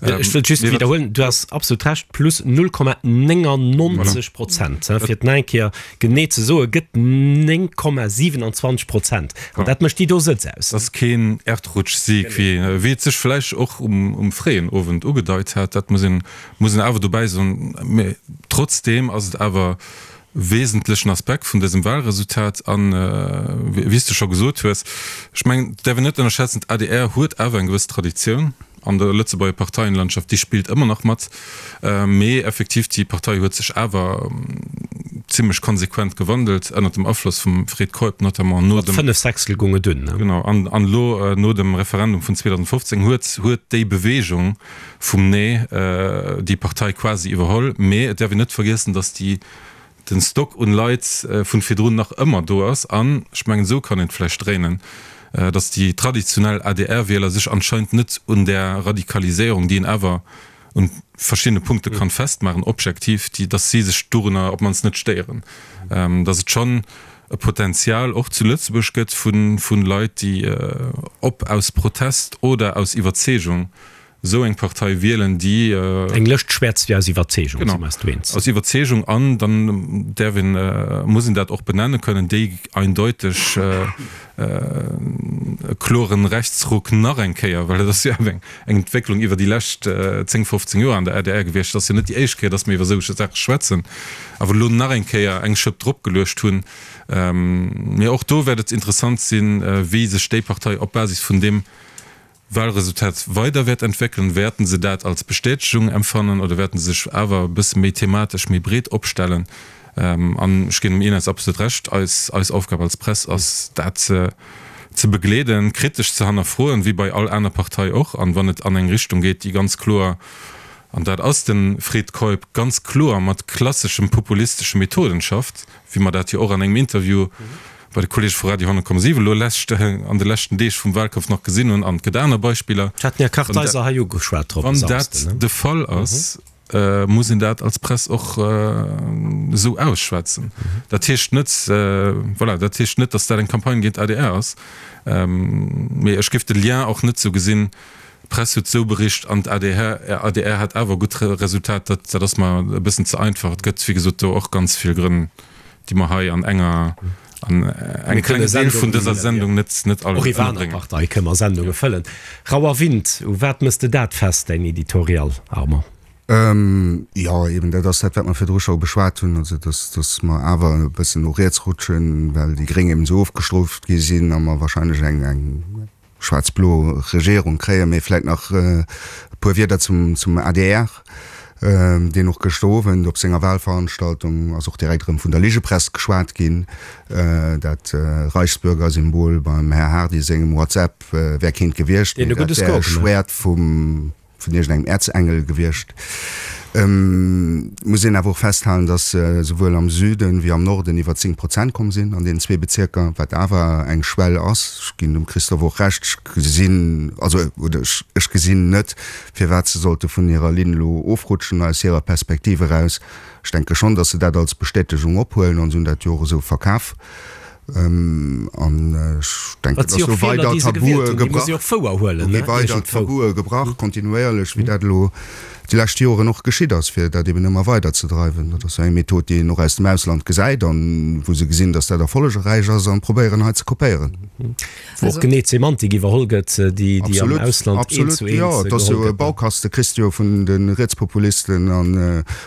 Ech wëllt just widderhuelen, du has absolut Recht, plus 0,99 Prozent, fir et nach eng Kéier genee ze soen, gëtt 9,27 Prozent. An dat mécht déi do Sëtz aus.
Dat ass keen Erdrutschsieg, wéi et sech vläicht och um fréien Owend ugedeit hat. Dat muss een Muss een awer dobäi soen. Mä trotzdeem ass et awer e wesentlechen Aspekt vun dësem Wahlresultat. An, wéi s de scho gesot hues, ech mengen, et däerf een net ënnerschätzen, d'ADR huet awer eng gewëss Traditioun an der Lëtzebuerger Parteienlandschaft, déi spillt ëmmer nach mat. Mee effektiv, déi Partei huet sech awer zimlech konsequent gewandelt, ënnert dem Afloss vum Fred Keup notamment
no dem. Mat 5 Sechstel goung et
dunn, ne? Genau. An elo no dem Referendum vun 2015 huet huet déi Bewegung, vum Nee déi Partei quasi iwwerholl. Mee et däerf een net vergiessen, datt déi, den Stock un Leit vun virdrun nach ëmmer do ass. An ech mengen, esou kann een et vläicht dréinen, datt déi traditionell ADR-Wieler sech anscheinend net un där Radikaliséierung, déi een awer un verschiddene Punkte kann festmaachen, objektiv, déi, datt si sech dorunner op d'mannst net stéieren. Datt et schonn e Potenzial och zu Lëtzebuerg gëtt vu Leit, déi ob aus Protest oder aus Iwwerzeegung esou eng Partei wielen, déi.
Eng Lëscht schwätzt jo aus Iwwerzeegung,
si mer eis do eens. Aus Iwwerzeegung, an dann däerf een, muss een dat och benenne kënnen, déi eindeuteg e kloren Rechtsruck nach eng Kéier, well dat ass jo awer eng Entwécklung iwwer déi lescht 10, 15 Joer an der adr gewiescht, et ass jo net déi éischt Kéier, datt mir iwwer esou Saache schwätzen, awer elo nach eng Kéier eng Schëpp dropgeluecht hunn. Mee och do wäert et interessant sinn, wéi sech déi Partei op Basis vun deem Wahlresultat weider wäert entwéckelen. Wäerten se dat als Bestätegung empfannen oder wäerten se sech awer e bësse méi thematesch, méi breet opstellen? An ech ginn dem Ines absolut Recht, eis, eis Aufgab als Press ass, dat ze begleeden, kritesch ze hannerfroen, wéi bei all aner Partei och. An wann et an eng Richtung geet, déi ganz kloer, an dat ass de Fred Keup, ganz kloer mat klasseschem populistesche Methoden schafft, wéi mer dat jo och an engem Interview. Bei de Kollege vu Radio 10,7 elo lescht, an de leschten Deeg vum Wahlkampf nach gesinn hunn, an et gëtt aner Beispiller.
Ech hat den Här Kartheiser hei ugeschwat drop e
Wann dat
Samsden.
de Fall ass, muss een dat als Press och esou ausschwätzen. Dat heescht net, voilà, dat heescht net, datt dat eng Campagne géint d'ADR ass, mee ech géif de Lien och net esou gesinn, d'Press huet esou bericht an d'ADR, adr hat awer e gutt Resultat. Dat, dat ass mer e bëssen ze einfach. Et gëtt, wéi gesot, do och ganz vill Grënn, déi mer hei an enger, an engem klengen Deel vun dëser Sendung net, net all
Och iwwer aner
ënnerbréngen.
Parteie kënne mer Sendunge fëllen. Rauer Wind, u wat mëss de dat fest, däin Editorial, Armand?
Jo, eben, dat ass dat, wat mer virdru scho beschwat hunn, also dass, dass mer awer e bëssen no riets rutschen, well déi Gréng eben esou ofgestrooft gi sinn a mer wahrscheinlech eng, eng, schwaarz-blo Regierung kréien. Mee vläit nach e puer Wierder zum zum adr, deen och gëschter Owend op senger Wahlveranstaltung ass och direkt erëm vun der Ligepress geschwat ginn. Dat Reichsbürgersymbol beim Här Hardy sengem WhatsApp wär keent gewiescht, mee dat wär e Schwäert vum. vun iergendengem Äerzengel gewiescht. Et muss een awer och festhalen, datt se souwuel am Süden wéi am Norden iwwer 10 Prozent komm sinn an deenen zwee Bezierker, wat awer eng Schwell ass. Ech ginn dem Christophe och Recht, ech gesinn, also oder ech gesinn net, firwat se sollte vun hirer Linn elo ofrutschen aus hirer Perspektiv eraus. Ech denke schonn, datt se dat als Bestätegung ophuelen an se hunn dat jo och esou verkaf. An ech denken,
dass
do weider Tabue gebrach, do gi weider Tabue gebrach, kontinuéierlech, wéi dat elo déi lescht Joren och geschitt ass, fir dat eben ëmmer weider ze dreiwen. Dat ass jo eng Method, déi een och aus dem Ausland gesäit an wou se gesinn, dass dat erfollegräich ass an probéieren hei ze kopéieren.
Wou och genee d'Semantik iwwerholl gëtt, déi am Ausland eent zu eent geholl gëtt.
Absolut, jo, et ass jo e Baukaste, kriss de jo vun de Rietspopulisten a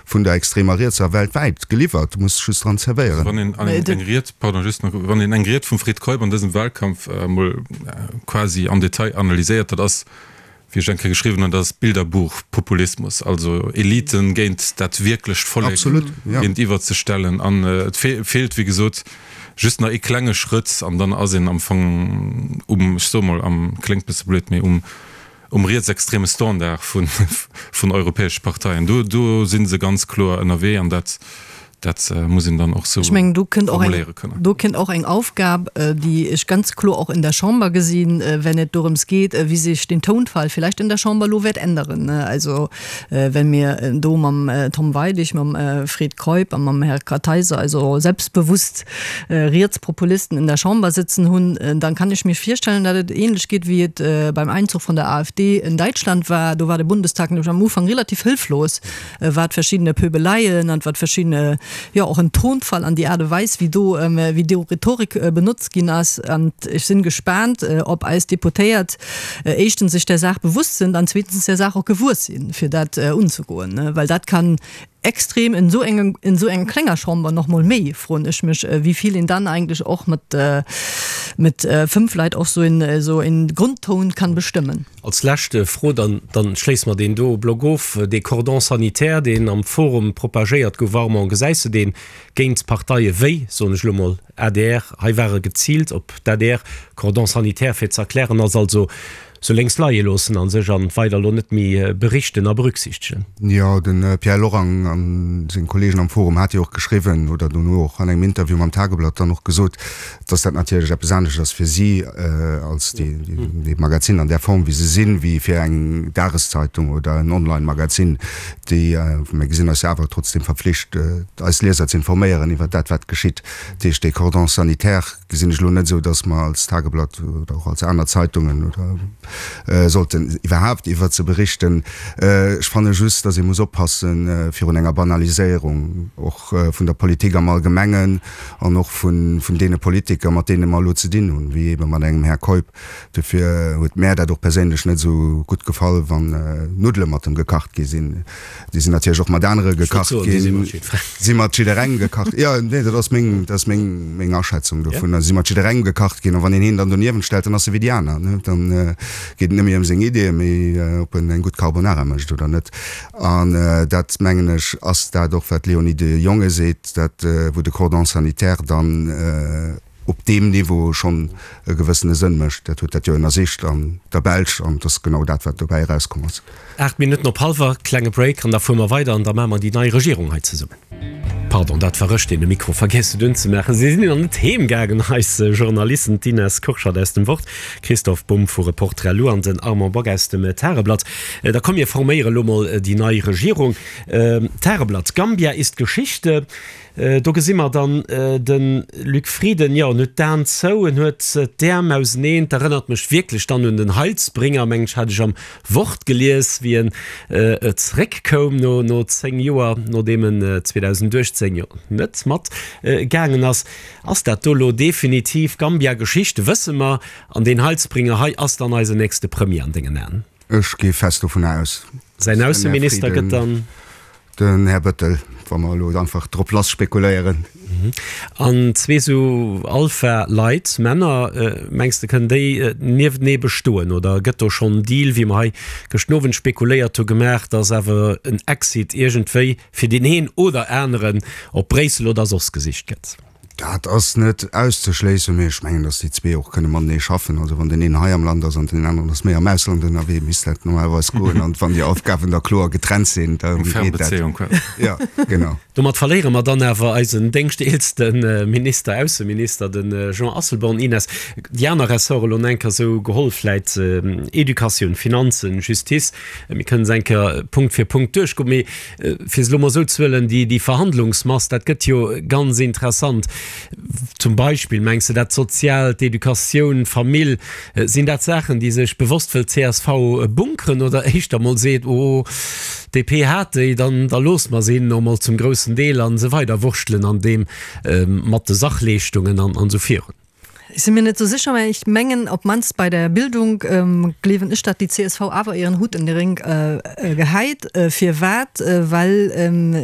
vun der extremer Rietser weltwäit geliwwert, du muss just dran zerwéieren.
Wann een eng Ried, pardon, just nach, wann een eng Ried vum Fred Keup an dësem Wahlkampf emol quasi am Detail analyséiert, dat ass, wéi ech eng Kéier geschriwwen hunn, dat ass Bilderbuchpopulismus, also Eliten géint dat wierklecht Vollek géintiwwer ze stellen. An et feelt, wéi gesot, just nach ee klenge Schrëtt an dann ass een am Fong um, ech soe mol am, kléngt bësse blöd, mee um, um rietsextreme Standard vun, vun europäesche Parteien. Do, do si se ganz kloer ënnerwee an dat, Dat muss een dann och sou
Ech mengen, do kënnt och eng,
formuléiere kënnen.
do kënnt och eng Aufgab, déi ech ganz kloer och in der Chamber gesinn, wenn et dorëms geet, wéi sech den Tonfall vielleicht in der Chamber elo wäert änderen. Also, wenn mir do mam Tom Weidig, mam Fred Keup a mam Här Kartheiser also selbstbewusst Rietspopulisten in der Chamber sitzen hunn, dann kann ech mir virstellen, datt et ähnlech geet, wéi et beim Einzug von der AfD in Däitschland war. Do war de Bundestag nämlech am Ufank relativ hëlflos, wat verschiddene Pöbeleien an wat verschiddene, jo och en Tonfall an déi Aart a Weis wéi do, wéi do Rhetorik benotzt ginn ass. An ech sinn gespaant, ob eis Deputéiert éischtens sech där Saach bewusst sind an zweetens där Saach och gewuess sinn, fir dat unzegoen, well dat kann extrem in esou engem, in esou enger klenger Chamber nach mol méi, froen ech mech, wéi vill een dann eigentlech och mat, mat fënnf Leit och esou en, esou en Grundton kann bestëmmen.
Als lescht Fro, dann, dann schléisse mer deen do Block of, dee Cordon sanitaire, deen am Forum propagéiert gouf, Armand, gesäis de deen géint Parteie wéi, soen ech elo mol, adr? Hei war e geziilt op d'ADR. Cordon sanitaire, fir ze erklären, ass also sou lénks leie loossen a sech an weider elo net méi berichten a berücksichtegen.
Jo, de Pierre Lorang a seng Kollegen am Forum hate jo och geschriwwen oder dono och an engem Interview mam Tageblatt dann och gesot, dass dat natierlech eppes anescht ass fir si als déi Magazin an där Form wéi se sinn, wéi fir eng Dageszeitung oder en Online-Magazin, déi, mir gesinn eis jo awer trotzdem verpflicht, eis Lieser ze informéieren iwwer dat wat geschitt. Dat heescht, dee Cordon sanitaire gesinn ech elo net esou, dass mer als Tageblatt oder och als aner Zeitungen oder sollten iwwerhaapt iwwert se berichten. Ech fanne just, dass ee muss oppasse virun enger Banaliséierung och vun der Politik am Allgemengen, an och vun deene Politiker, mat deene mer elo ze dinn hunn, wéi eebe mat engem Här Keup. Dofir huet mär dat och perséinlech net esou gutt gefall, wann Nuddele mat em gekacht gi sinn. Déi sinn natierlech och mat anere gekacht ginn. Si mat jidderengem gekacht, jo, nee, dat ass meng, dat ass meng, meng Aschätzung dovunner. Si mat jidderengem gekacht ginn. A wann een hien dann doniewent stellt, dann ass e wéi déi aner, ne? Dann geet et net méi ëm seng Ideeën, mee ob en eng gutt Carbonara mécht oder net. An dat, mengen ech, ass dat och, wat d'Léonie de Jonge seet, dat, wou de Cordon sanitaire dann op deem Niveau schonn e gewëssene Sënn mécht. Dat huet dat jo ënnersicht an der Belsch an et ass genau dat, wat dobäi erauskomm ass.
8 Minutten op hallwer, klenge Break an da fuere mer weider an da maache mer déi nei Regierung hei zesummen. Pardon, dat war ech, deen de Mikro vergiess huet unzemaachen. Si sinn nach net heem gaangen, eis Journalisten, d'Ines Kurschat aus dem Wort, Christoph Bumb vu Reporter.lu an den Armand Bock aus dem Tageblatt. Da komm mir forméiere lo mol déi nei Regierung. Tageblatt, Gambia ist Geschichte. Do gesi mer dann de Luc Frieden, jo, en huet d'Aen zou, en huet d'Äerm auseneen. 't erënnert mech wierklech dann un den Heilsbringer, mengen ech, hat ech am Wort gelies, wéi en zeréckkoum no no 10 Joer, nodeem en 2018 jo net mat gaangen ass. Ass dat do lo definitiv Gambia Geschichte, wësse mer, an deen Heilsbringer hei ass dann eisen nächste Premier an dengen Aen?
Ech gi fest dovunner aus.
Säin Ausseminister gëtt dann?
Den Här Bëttel, wa mer elo einfach drop lass spekuléieren.
An zwee sou Alpha-Leit, Männer, mengs de kënnen déi nieftenee bestoen oder gëtt do schonn en Deal, wéi mer hei gëschten Owend spekuléiert hu gemaach, datt awer en Exit iergendwéi fir deen een oder aneren op Bréissel oder soss gesicht gëtt?
Dat ass net auszeschléissen, mee ech mengen, datt déi zwee och kënne matenee schaffen. Also wann deen een hei am Land ass an deen aneren ass méi am Ausland ënnerwee, misst dat normalerweis goen. An wann déi Aufgaben da kloer getrennt sinn, da
Eng
geet dat.
Fernbezéiung quasi.
Ja, genau.
Domat verléiere mer dann awer eisen déngschteelste Minister, Ausseminister, de Jean Asselborn. Ines, déi aner Ressorte elo enker esou geholl, vläit Educatioun, Finanzen, Justice, mir kënnen se eng Kéier Punkt fir Punkt duerchgoen, mee Fir se elo mol esou ze huelen, déi Verhandlungsmass, dat gëtt jo ganz interessant. Zum Beispill, mengs de dat Soziaalt, d'Educatioun, d'Famill, sinn dat Saachen, déi sech bewosst wëllt csv bunkeren oder éischter mol seet, oh, DP hat déi, dann da loosse mer se hinnen och mol zum groussen Deel a se weider wurschtelen an deem mat de Sachleeschtungen an esou virun?
Ech si mir net sou sécher, mä ech mengen, op d'mannst bei der Bildung gleewen ech, datt déi csv awer ieren Hutt en de Rénk gehäit. Firwat? Well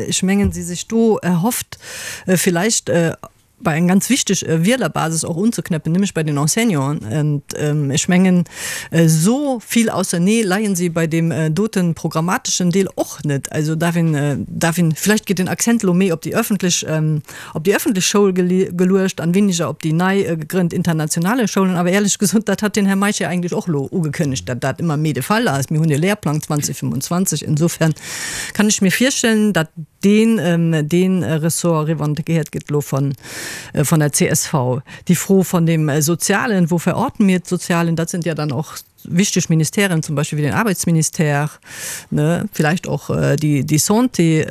ech mengen, si sech do erhofft, villäicht bei eng ganz wichteg Wielerbasis och unzeknäppen, nämlech bei den Enseignanten. Und ech mengen, esou vill ausernee leien si bei deem dote programmateschen Deel och net. Also darf een, darf een, villäicht geet den Accent elo méi op déi öffentlech, op déi öffentlech Schoul geluecht an weniger op déi nei gegrënnt internationale Schoulen. Awer éierlech gesot, dat hat den Här Meisch jo eigentlech och elo ugekënnegt, datt dat ëmmer méi de Fall ass. Mir hunn e Lehrplang 2025. Insofern kann ech mir virstellen, datt deen, dee Ressort revendiquéiert gëtt elo von, von der csv. Déi Fro von dem Sozialen, wo verorten mir d'Sozialen, dat sind ja dann och wichteg Ministèren, zum Beispill wéi den Arbeitsministère, ne, vielleicht och déi, déi Santé.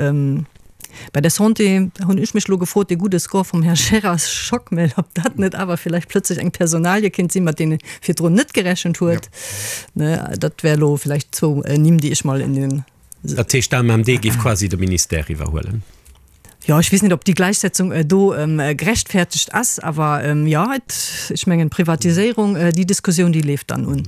Bei der Santé hunn ech mech elo gefrot, dee gudde Score vum Här Gérard Schockmel, ob dat net awer vielleicht plötzlech eng Personalie kéint sinn, mat deene virdrun net gerechent huet. Ne, dat wär elo vielleicht zwou Nimm, déi ech mol in den.
Dat heescht, d'AMMD géif quasi de Ministère iwwerhuelen?
Jo, ech weess net, ob déi Gläichsetzung do gerechtfertegt ass, awer jo, et, ech mengen, d'Privatiséierung, déi Diskussioun, déi leeft dann un.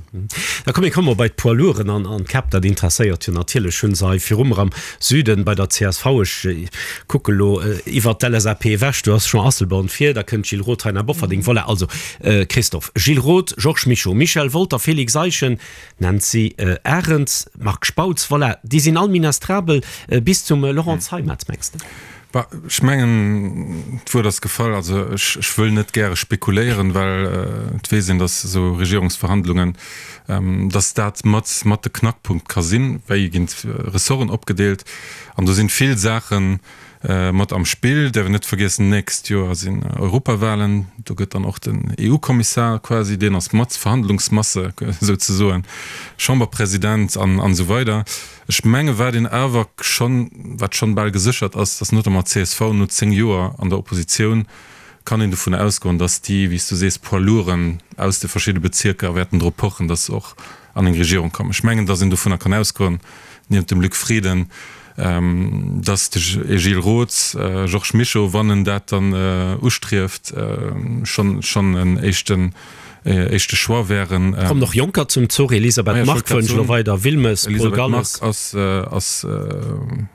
Da komm, mir komme mol bei d'Poids lourden an an d'Käpp. Dat interesséiert jo natierlech. Hunn se hei virum mer am Süden bei der csv, ech kucke lo iwwert d'LSAP ewech, do ass Jean Asselborn vir, da kënnt Gilles Roth hei nach Bofferding. Voilà, also Christophe, Gilles Roth, Georges Mischo, Michel Wolter, Félix Eischen, Nancy Arendt, Marc Spautz, voilà, déi sinn all ministrabel bis zum Laurent Zeimet, mengs de?
Bah, ech mengen, d'Wuert ass gefall. Also ech, ech wëll net gäre spekuléieren, well et weess een, datt esou Regierungsverhandlungen, datt dat mat, mat de Knackpunkt ka sinn, wéi ginn d'Ressorten opgedeelt. An do sinn vill Saachen, Mat am Spill däerf een net vergiessen, nächst Joer sinn Europawahlen, do gëtt dann och den EU-Kommissar quasi, deen ass mat Verhandlungsmasse souzesoen, Chamberpresident an esou weider. Ech menge wat een awer schonn, wat schonn bal geséchert ass, datt notamment d'CSV no 10 Joer an der Oppositioun, kann een dovun ausgoen, datt déi, wéi s du sees, Poids lourden aus de verschidde Bezierker wäerten drop pochen, datt se och an eng Regierung kommen. Ech mengen, datt een dovunner kann ausgoen, niewent dem Luc Frieden, datt de Gilles Roth, Georges Mischo, wann en dat dann ustrieft, schonn schonn en éischten éischte Choix wären.
Kommen och Jonker zum Zuch, Elisabeth Margue wënsch elo weider, Wilmes, Paul
Elisabeth Margue
Galles.
ass ass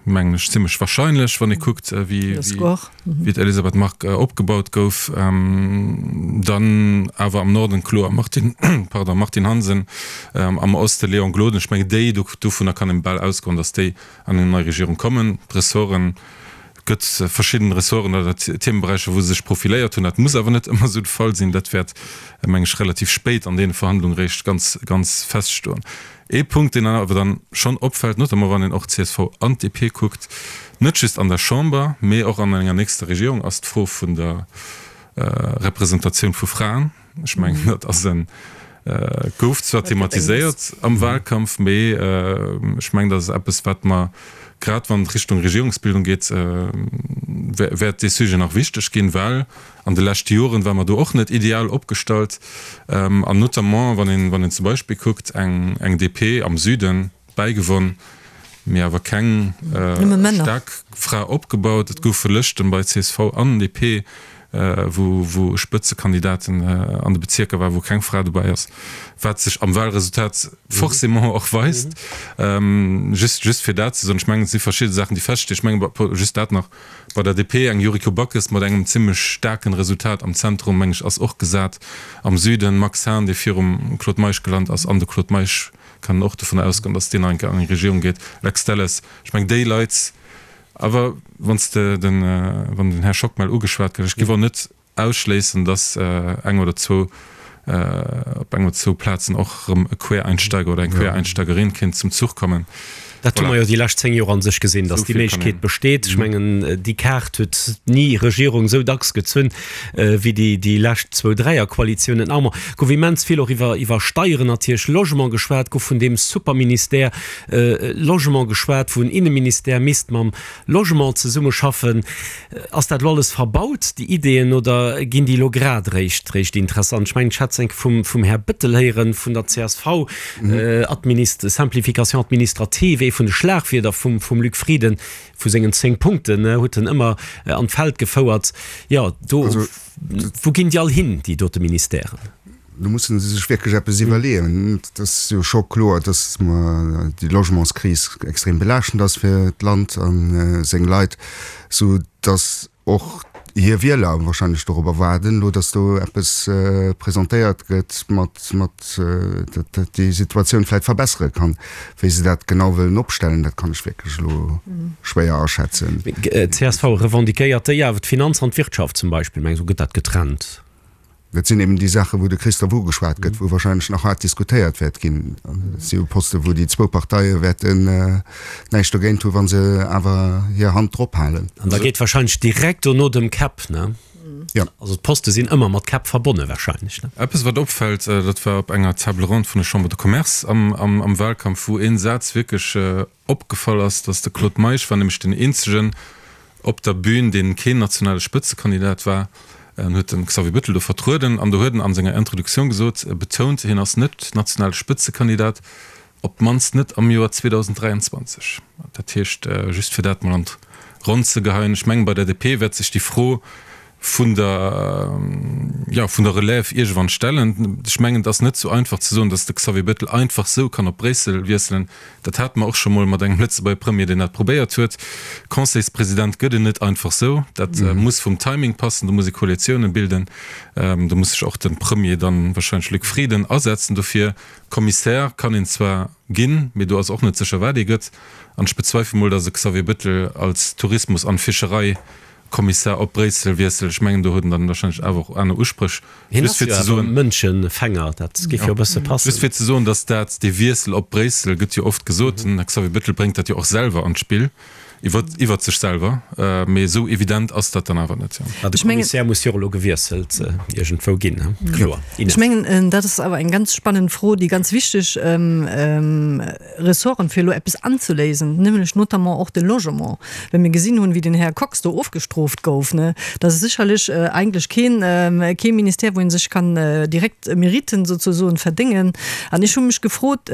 mengen ech zimlech wahrscheinlech, wann ee kuckt wéi wéi d'Elisabeth Margue opgebaut gouf. Dann awer am Norden kloer Martine, pardon, Martine Hansen, am Oste Léon Gloden. Ech mengen déi, dovunner kann een bal ausgoen, datt déi an eng nei Regierung kommen. D'Ressorten. Gëtt verschidden Ressorten oder Themeberäicher, wou se sech profiléiert hunn. Dat muss awer net ëmmer esou de Fall sinn. Dat wäert, meng ech, relativ spéit an deene Verhandlunge réischt ganz, ganz feststoen. Ee Punkt, deen awer dann schonn opfält, notamment wann een och d'CSV an d'DP kuckt, net just an der Chamber, mee och an enger nächster Regierung, ass d'Fro vun der Representatioun vu Fraen. Ech mengen, dat ass en, gouf zwar thematiséiert am Wahlkampf, mee ech mengen, dat ass eppes, wat mer, grad wann et Richtung Regierungsbildung geet, wäert dee Sujet nach wichteg ginn, well an de leschte Joren war mer do och net ideal opgestallt. An notamment, wann een, wann een zum Beispill kuckt, eng, eng DP am Süden, Bäigewonn, mee awer keng staark Fra opgebaut. Et goufe Lëschten bei csv an DP, wou wou Spëtzekandidaten an de Bezierker war, wou keng Fra dobäi ass, wat sech am Wahlresultat forcément och weist. Just just fir dat ze soen. Ech mengen, et si verschidde Saachen, déi feststinn. Ech mengen, just dat nach, bei der DP eng Yuriko Backes mat engem zimlech staarken Resultat am Zentrum, meng ech, ass och gesat. Am Süden Max Hahn, dee virum Claude Meisch gelant ass, an de Claude Meisch kann och dovun ausgoen, datt deen enke an eng Regierung geet. Lex Delles, ech mengen déi Leit, awer wann s de den, wann den Här Schockmel ugeschwat gëtt, ech géif och net ausschléissen, datt eng oder zwou, op eng oder zwou Plazen och erëm e Quereinsteiger oder eng Quereinsteigerin kéint zum Zuch kommen.
Dat hu mer jo déi lescht 10 Joer a sech gesinn, datt déi Méiglechkeet besteet. Ech mengen, déi Kaart huet ni Regierung esou dacks gezunn wéi déi, déi lescht zwou Dräierkoalitiounen. Armand, gouf immens vill och iwwer, iwwer Steieren natierlech, Logement geschwat, gouf vun deem Superministère Logement geschwat, wou en Inneministère misst mam Logement zesummeschaffen. Ass dat elo alles verbaut, déi Ideeën, oder ginn déi elo grad eréischt réischt interessant? Ech mengen, ech hat se enke vum, vum Här Bettel héieren, vun der csv, Administ-, Simplification administrative, ee vun de Schlagwierder vum, vum Luc Frieden, vu sengen 10 Punkten, huet en ëmmer an d'Feld gefouert. Jo, do, wou ginn déi all hin, déi dote Ministèren?
Do musse se sech wierklech eppes iwwerleeën. Et ass jo scho kloer, datt mer déi Logementskris extrem belaaschtend ass fir d'Land a seng Leit, sou datt och hir Wieler wahrscheinlech dorobber waarden elo, datt do eppes presentéiert gëtt, mat, mat, dat déi Situatioun vläicht verbessere kann. Wéi se dat genau wëllen opstellen, dat kann ech wierklech elo schwéier aschätzen.
Csv revendiquéiert déi awer d'Finanz an d'Wirtschaft zum Beispill, meng ech, esou gëtt dat getrennt.
Dat sinn eben déi Saachen, wou de Christophe ugeschwat gëtt, wou wahrscheinlech nach haart diskutéiert wäert ginn. Dat si jo Posten, wou déi zwou Parteie wäerten näischt dogéint hunn, wa se awer hir Hand drop halen.
An da geet wahrscheinlech direkt dono dem Käpp, ne?
Jo.
Also d'Poste sinn ëmmer mat Käpp verbonne wahrscheinlech, ne?
Eppes, wat opfält, dat war op enger Table ronde vun der Chambre de Commerce am Wahlkampf, wou ee Saz wierklech Opgefall ass, datt de Claude Meisch war nämlech den eenzegen op der Bühn, deen keen nationale Spëtzekandidat war. En huet de Xavier Bettel do vertrueden an do huet en an senger Introduktioun gesot, betount, hien ass net nationale Spëtzekandidat, op d'mannst net am Joer 2023. Dat heescht, just fir dat mol an d'Ronn ze geheien, ech mengen, bei der DP wäert sech déi Fro vun der, jo, vun der Relève iergendwann stellen. Ech mengen, et ass net esou einfach ze soen, datt de Xavier Bettel einfach esou kann op Bréissel wiesselen. Dat hate mer och scho mol mat engem Lëtzebuerger Premier, deen dat probéiert huet. Conseilspresident gëtt en net einfach esou. Dat muss vum Timing passen, do muss ee Koalitiounen bilden, do muss sech och de Premier dann, wahrscheinlech Luc Frieden, asetzen dofir. Kommissär kann een zwar ginn, mee do ass och net sécher, wat ee gëtt. An ech bezweifele mol, datt e Xavier Bettel als Tourismus an Fischerei Kommissar op Bréissel wiesselt. Ech mengen, do huet en dann wahrscheinlech awer och aner Uspréch.
Hien ass jo awer Mënschenfänger, dat géif jo e bësse passen.
Just fir ze soen, datt dat, dee Wiessel op Bréissel gëtt jo oft gesot, den Här Xavier Bettel bréngt dat jo och selwer an d'Spill, iwwer, iwwert sech selwer, mee esou evident ass dat dann awer net.
Ma de Kommissär muss jo och elo gewiesselt iergendwou ginn, kloer.
Ines. Ech mengen, dat ass awer eng ganz spannend Fro, déi ganz wichteg. Ressorten, fir elo eppes anzeléisen, nämlech notamment och de Logement. Well mir gesinn hunn, wéi den Här Kox do ofgestrooft gouf, ne, dat ass sécherlech eigentlech keen, kee Ministère, wou ee sech kann direkt Meriten souzesoen verdéngen. An ech hu mech gefrot,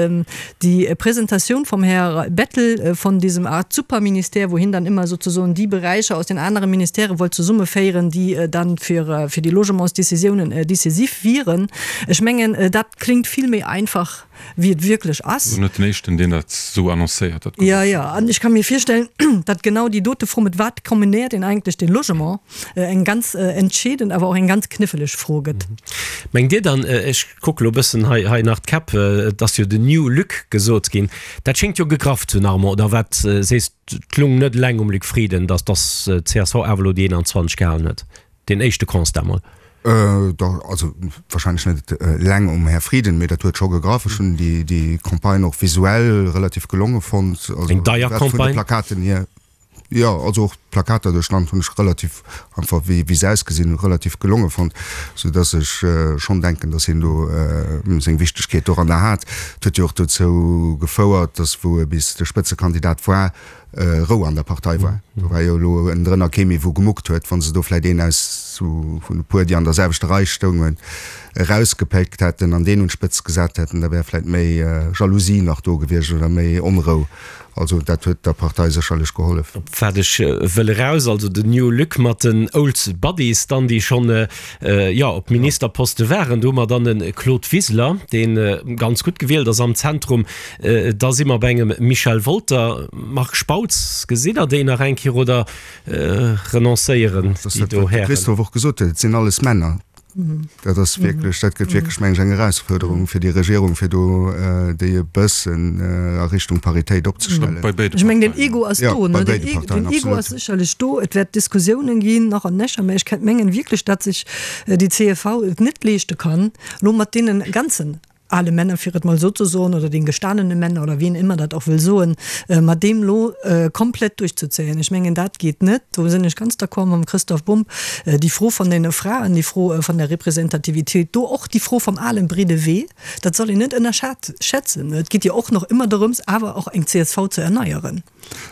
déi Presentatioun vum Här Bettel von diesem Art Superministère, wou hien dann ëmmer souzesoen déi Beräicher aus den anere Ministèrë wollt zesummeféieren, déi dann fir, fir déi Logementsdécisiounen décisif wieren, ech mengen, dat klingt vill méi einfach, wéi et wierklech ass.
Net den éischten, deen dat esou annoncéiert. Dat
Jo, jo, an ech ka mir virstellen, datt genau déi dote Fro, mat wat kombinéiert een eigentlech de Logement, eng ganz entscheedend, awer och eng ganz kniffleg Fro gëtt.
Mengt Dir dann, ech kucke lo e bëssen hei, hei nach d'Käpp, et ass jo den New Luc gesot ginn, dat schéngt jo gegraff ze hunn, Armand, oder wat sees d'Lung? lung net eleng um Luc Frieden, datt d'CSV awer elo déi 21 gehalen huet. Deen éischte Constat mol.
Dach, also wahrscheinlech net eleng um Här Frieden, mee dat huet scho gegraff. Ech hunn déi Campagne och visuell relativ gelonge fonnt.
Eng deier
Campagne. Vun de Plakaten hier. Jo, also och d'Plakater duerch d'Land hunn ech relativ, einfach wéi wéi se ausgesinn hunn, relativ gelonge fonnt, sou dass ech schonn denken, dass hien do seng Wichtegkeet doranner hat. Et huet jo och dozou gefouert, dass wou e bis de Spëtzekandidat war, Rou an der Partei war. Do war jo elo ënnendrënner kee méi wou gemuckt huet. Wa se do vläit een aus vun e puer, déi an der selwechter Rei stoungen, erausgepéckt hätten an deen un d'Spëtzt gesat hätten, da wär vläit méi Jalousie nach do gewiescht oder méi Onrou. Also dat huet der Partei sécherlech gehollef.
Op wat ech wëll eraus, also den New Luc mat den Old Buddies dann, déi schonn, jo, op Ministerposte waren. Do hu mer dann e Claude Wiseler, dee ganz gutt gewielt ass am Zentrum. Da si mer bei engem Michel Wolter. Marc Spautz, gesitt Der déi nach eng Kéier oder renoncéieren déi do
Hären? Dat ass dat, wat de Christophe och gesot huet, et sinn alles Männer. Dat ass wierklech, dat gëtt wierklech, meng ech, eng Erausfuerderung fir déi Regierung, fir do déi e bëssen a Richtung Paritéit opzestellen.
Bei béide
Ech
mengen, den Ego ass do, ne? Den Ego ass sécherlech do. Et wäert Diskussiounen ginn, nach an nöcher, mä ech kennt mengen wierklech, datt sech déi csv et net leeschte kann, elo mat deene ganzen ale Männer, fir et mol esou ze soen, oder den gestanene Männer oder wien ëmmer dat och wëll soen, mat deem elo komplett duerchzezéien. Ech mengen, dat geet net. Do sinn ech ganz d'accord mam Christoph Bumb. Déi Fro von den Fraen, déi Fro von der Representativitéit, do och déi Fro vom alen breede Wee, dat soll een net ënnerschätzen. Et geet jo och nach ëmmer dorëms, awer och eng csv ze erneieren.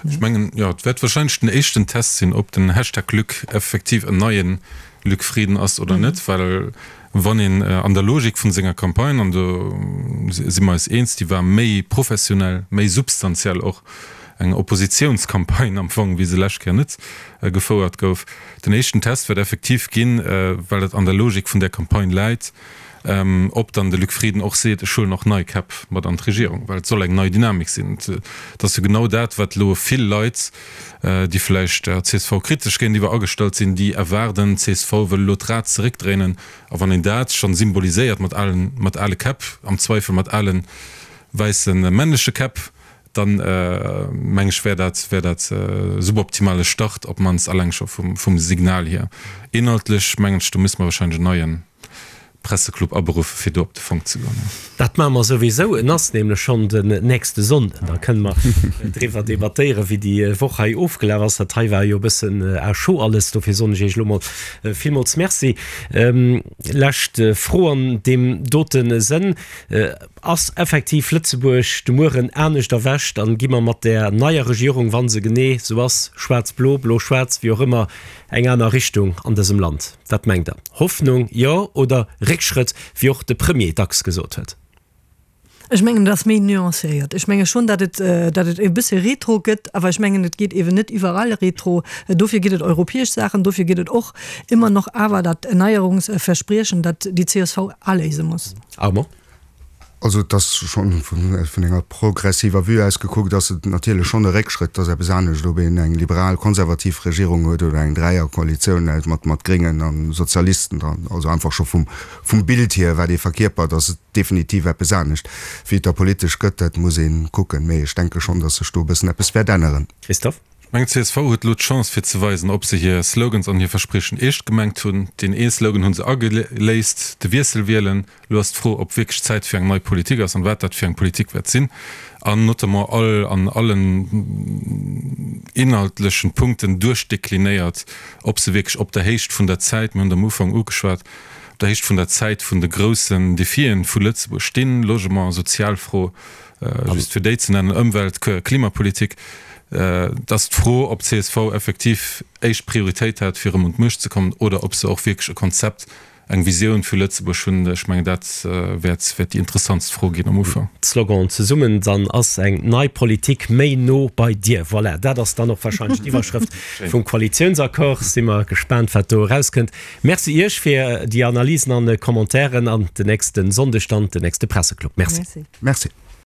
Ech mengen, jo, et wäert wahrscheinlech den éischten Test sinn, ob den Hashtag Luc effektiv en neien Luc Frieden ass oder net, well wann een an der Logik vun senger Campagne, an do si mer eis eens, déi war méi professionell, méi substantiell och, eng Oppositiounscampagne am Fong, wéi se lescht Kéier net gefouert gouf. Den éischten Test wäert effektiv ginn, well dat an der Logik vun där Campagne läit, Ob dann de Luc Frieden och seet, ech huelen och nei Käpp mat an d'Regierung, well et soll eng nei Dynamik sinn. Et ass jo genau dat, wat elo vill Leit, déi vläicht der csv kritesch géintiwwer agestallt sinn, déi erwaarden, d'CSV wëll elo d'Rad zeréckdréinen. A wann een dat schonn symboliséiert mat alen, mat ale Käpp, am Zweifel mat ale wäisse männleche Käpp, dann meng ech wär dat, wär dat e suboptimale Start, op d'mannst alleng scho vum, vum Signal hier. Inhaltlech mengen ech, do misste mer wahrscheinlech en neie Presseclub aberuffe fir do op de Fong ze goen.
Dat maache mer souwisou. En ass nämlech schonn den nächste Sonnden. Da kënne mer driwwer debattéieren, wéi déi Woch hei ofgelaf ass. Dat hei war jo e bëssen à chaud alles. Dofir soen ech Iech elo mol villmools Merci. Lescht Fro an deem dote Sënn. Ass effektiv Lëtzebuerg de Mueren anescht erwächt an gi mer mat där neier Regierung, wa se genee sou ass, schwaarz-blo, blo-schwaarz, wéi och ëmmer, eng aner Richtung an dësem Land? Wat mengt Der? Hoffnung, jo, oder Réckschrëtt, wéi och de Premier dacks gesot huet?
Ech mengen, et ass méi nuancéiert. Ech menge schonn, datt et, datt et e bësse Retro gëtt, awer ech mengen, et geet eeben net iwwerall Retro. Dofir ginn et europäesch Saachen, dofir gëtt et och ëmmer nach awer dat Erneierungsverspriechen, dat déi csv aléise muss.
Armand?
Also et ass schonn, vun enger progressiver Vue aus gekuckt, ass et natierlech schonn e Réckschrëtt. Et ass eppes anescht, ob een eng liberal-konservativ Regierung huet oder eng Dräierkoalitioun mat mat Gréngen a Sozialisten dran. Also einfach scho vum vum Bild hier, wat ee verkierpert, ass et definitiv eppes anescht. Wéi et da politesch gëtt, dat muss ee kucken. Mee ech denke schonn, datt sech do e bëssen eppes wäert änneren.
Christophe?
Ech mengen, csv huet elo d'Chance fir ze weisen, ob se hir Slogans an hir Verspriechen eescht gemengt hunn. Deen ee Slogan hu se ageléist, de Wiessel wielen. Elo ass d'Fro, ob wierklech Zäit fir eng nei Politik ass an wat dat fir eng Politik wäert sinn. An notamment all an allen inhaltlechen Punkten duerchdeklinéiert, ob se wierklech op der Héicht vun der Zäit, mir hunn et am Ufank ugeschwat, op der Héicht vun der Zäit vun de groussen Defien vu Lëtzebuerg stinn, Logement, Sozialfro, just fir déi ze nennen, Ëmwelt-, Klimapolitik. Et ass d'Fro, ob csv effektiv éischt Prioritéit hat, fir erëm un d'Muecht ze kommen, oder ob se och wierklech e Konzept, eng Visioun fir Lëtzebuerg hunn. Ech mengen, dat wäert déi interessantst Fro ginn am Ufank.
Slogan, Zesummen, dann ass eng nei Politik méi no bei dir. Voilà, dat ass dann och wahrscheinlech d'Iwwerschrëft vum Koalitiounsaccord. Si mer gespaant, wat do erauskënnt. Merci Iech fir déi Analysen an Commentairen an den nächste Sonndeg dann den nächste Presseclub. Merci.
Merci.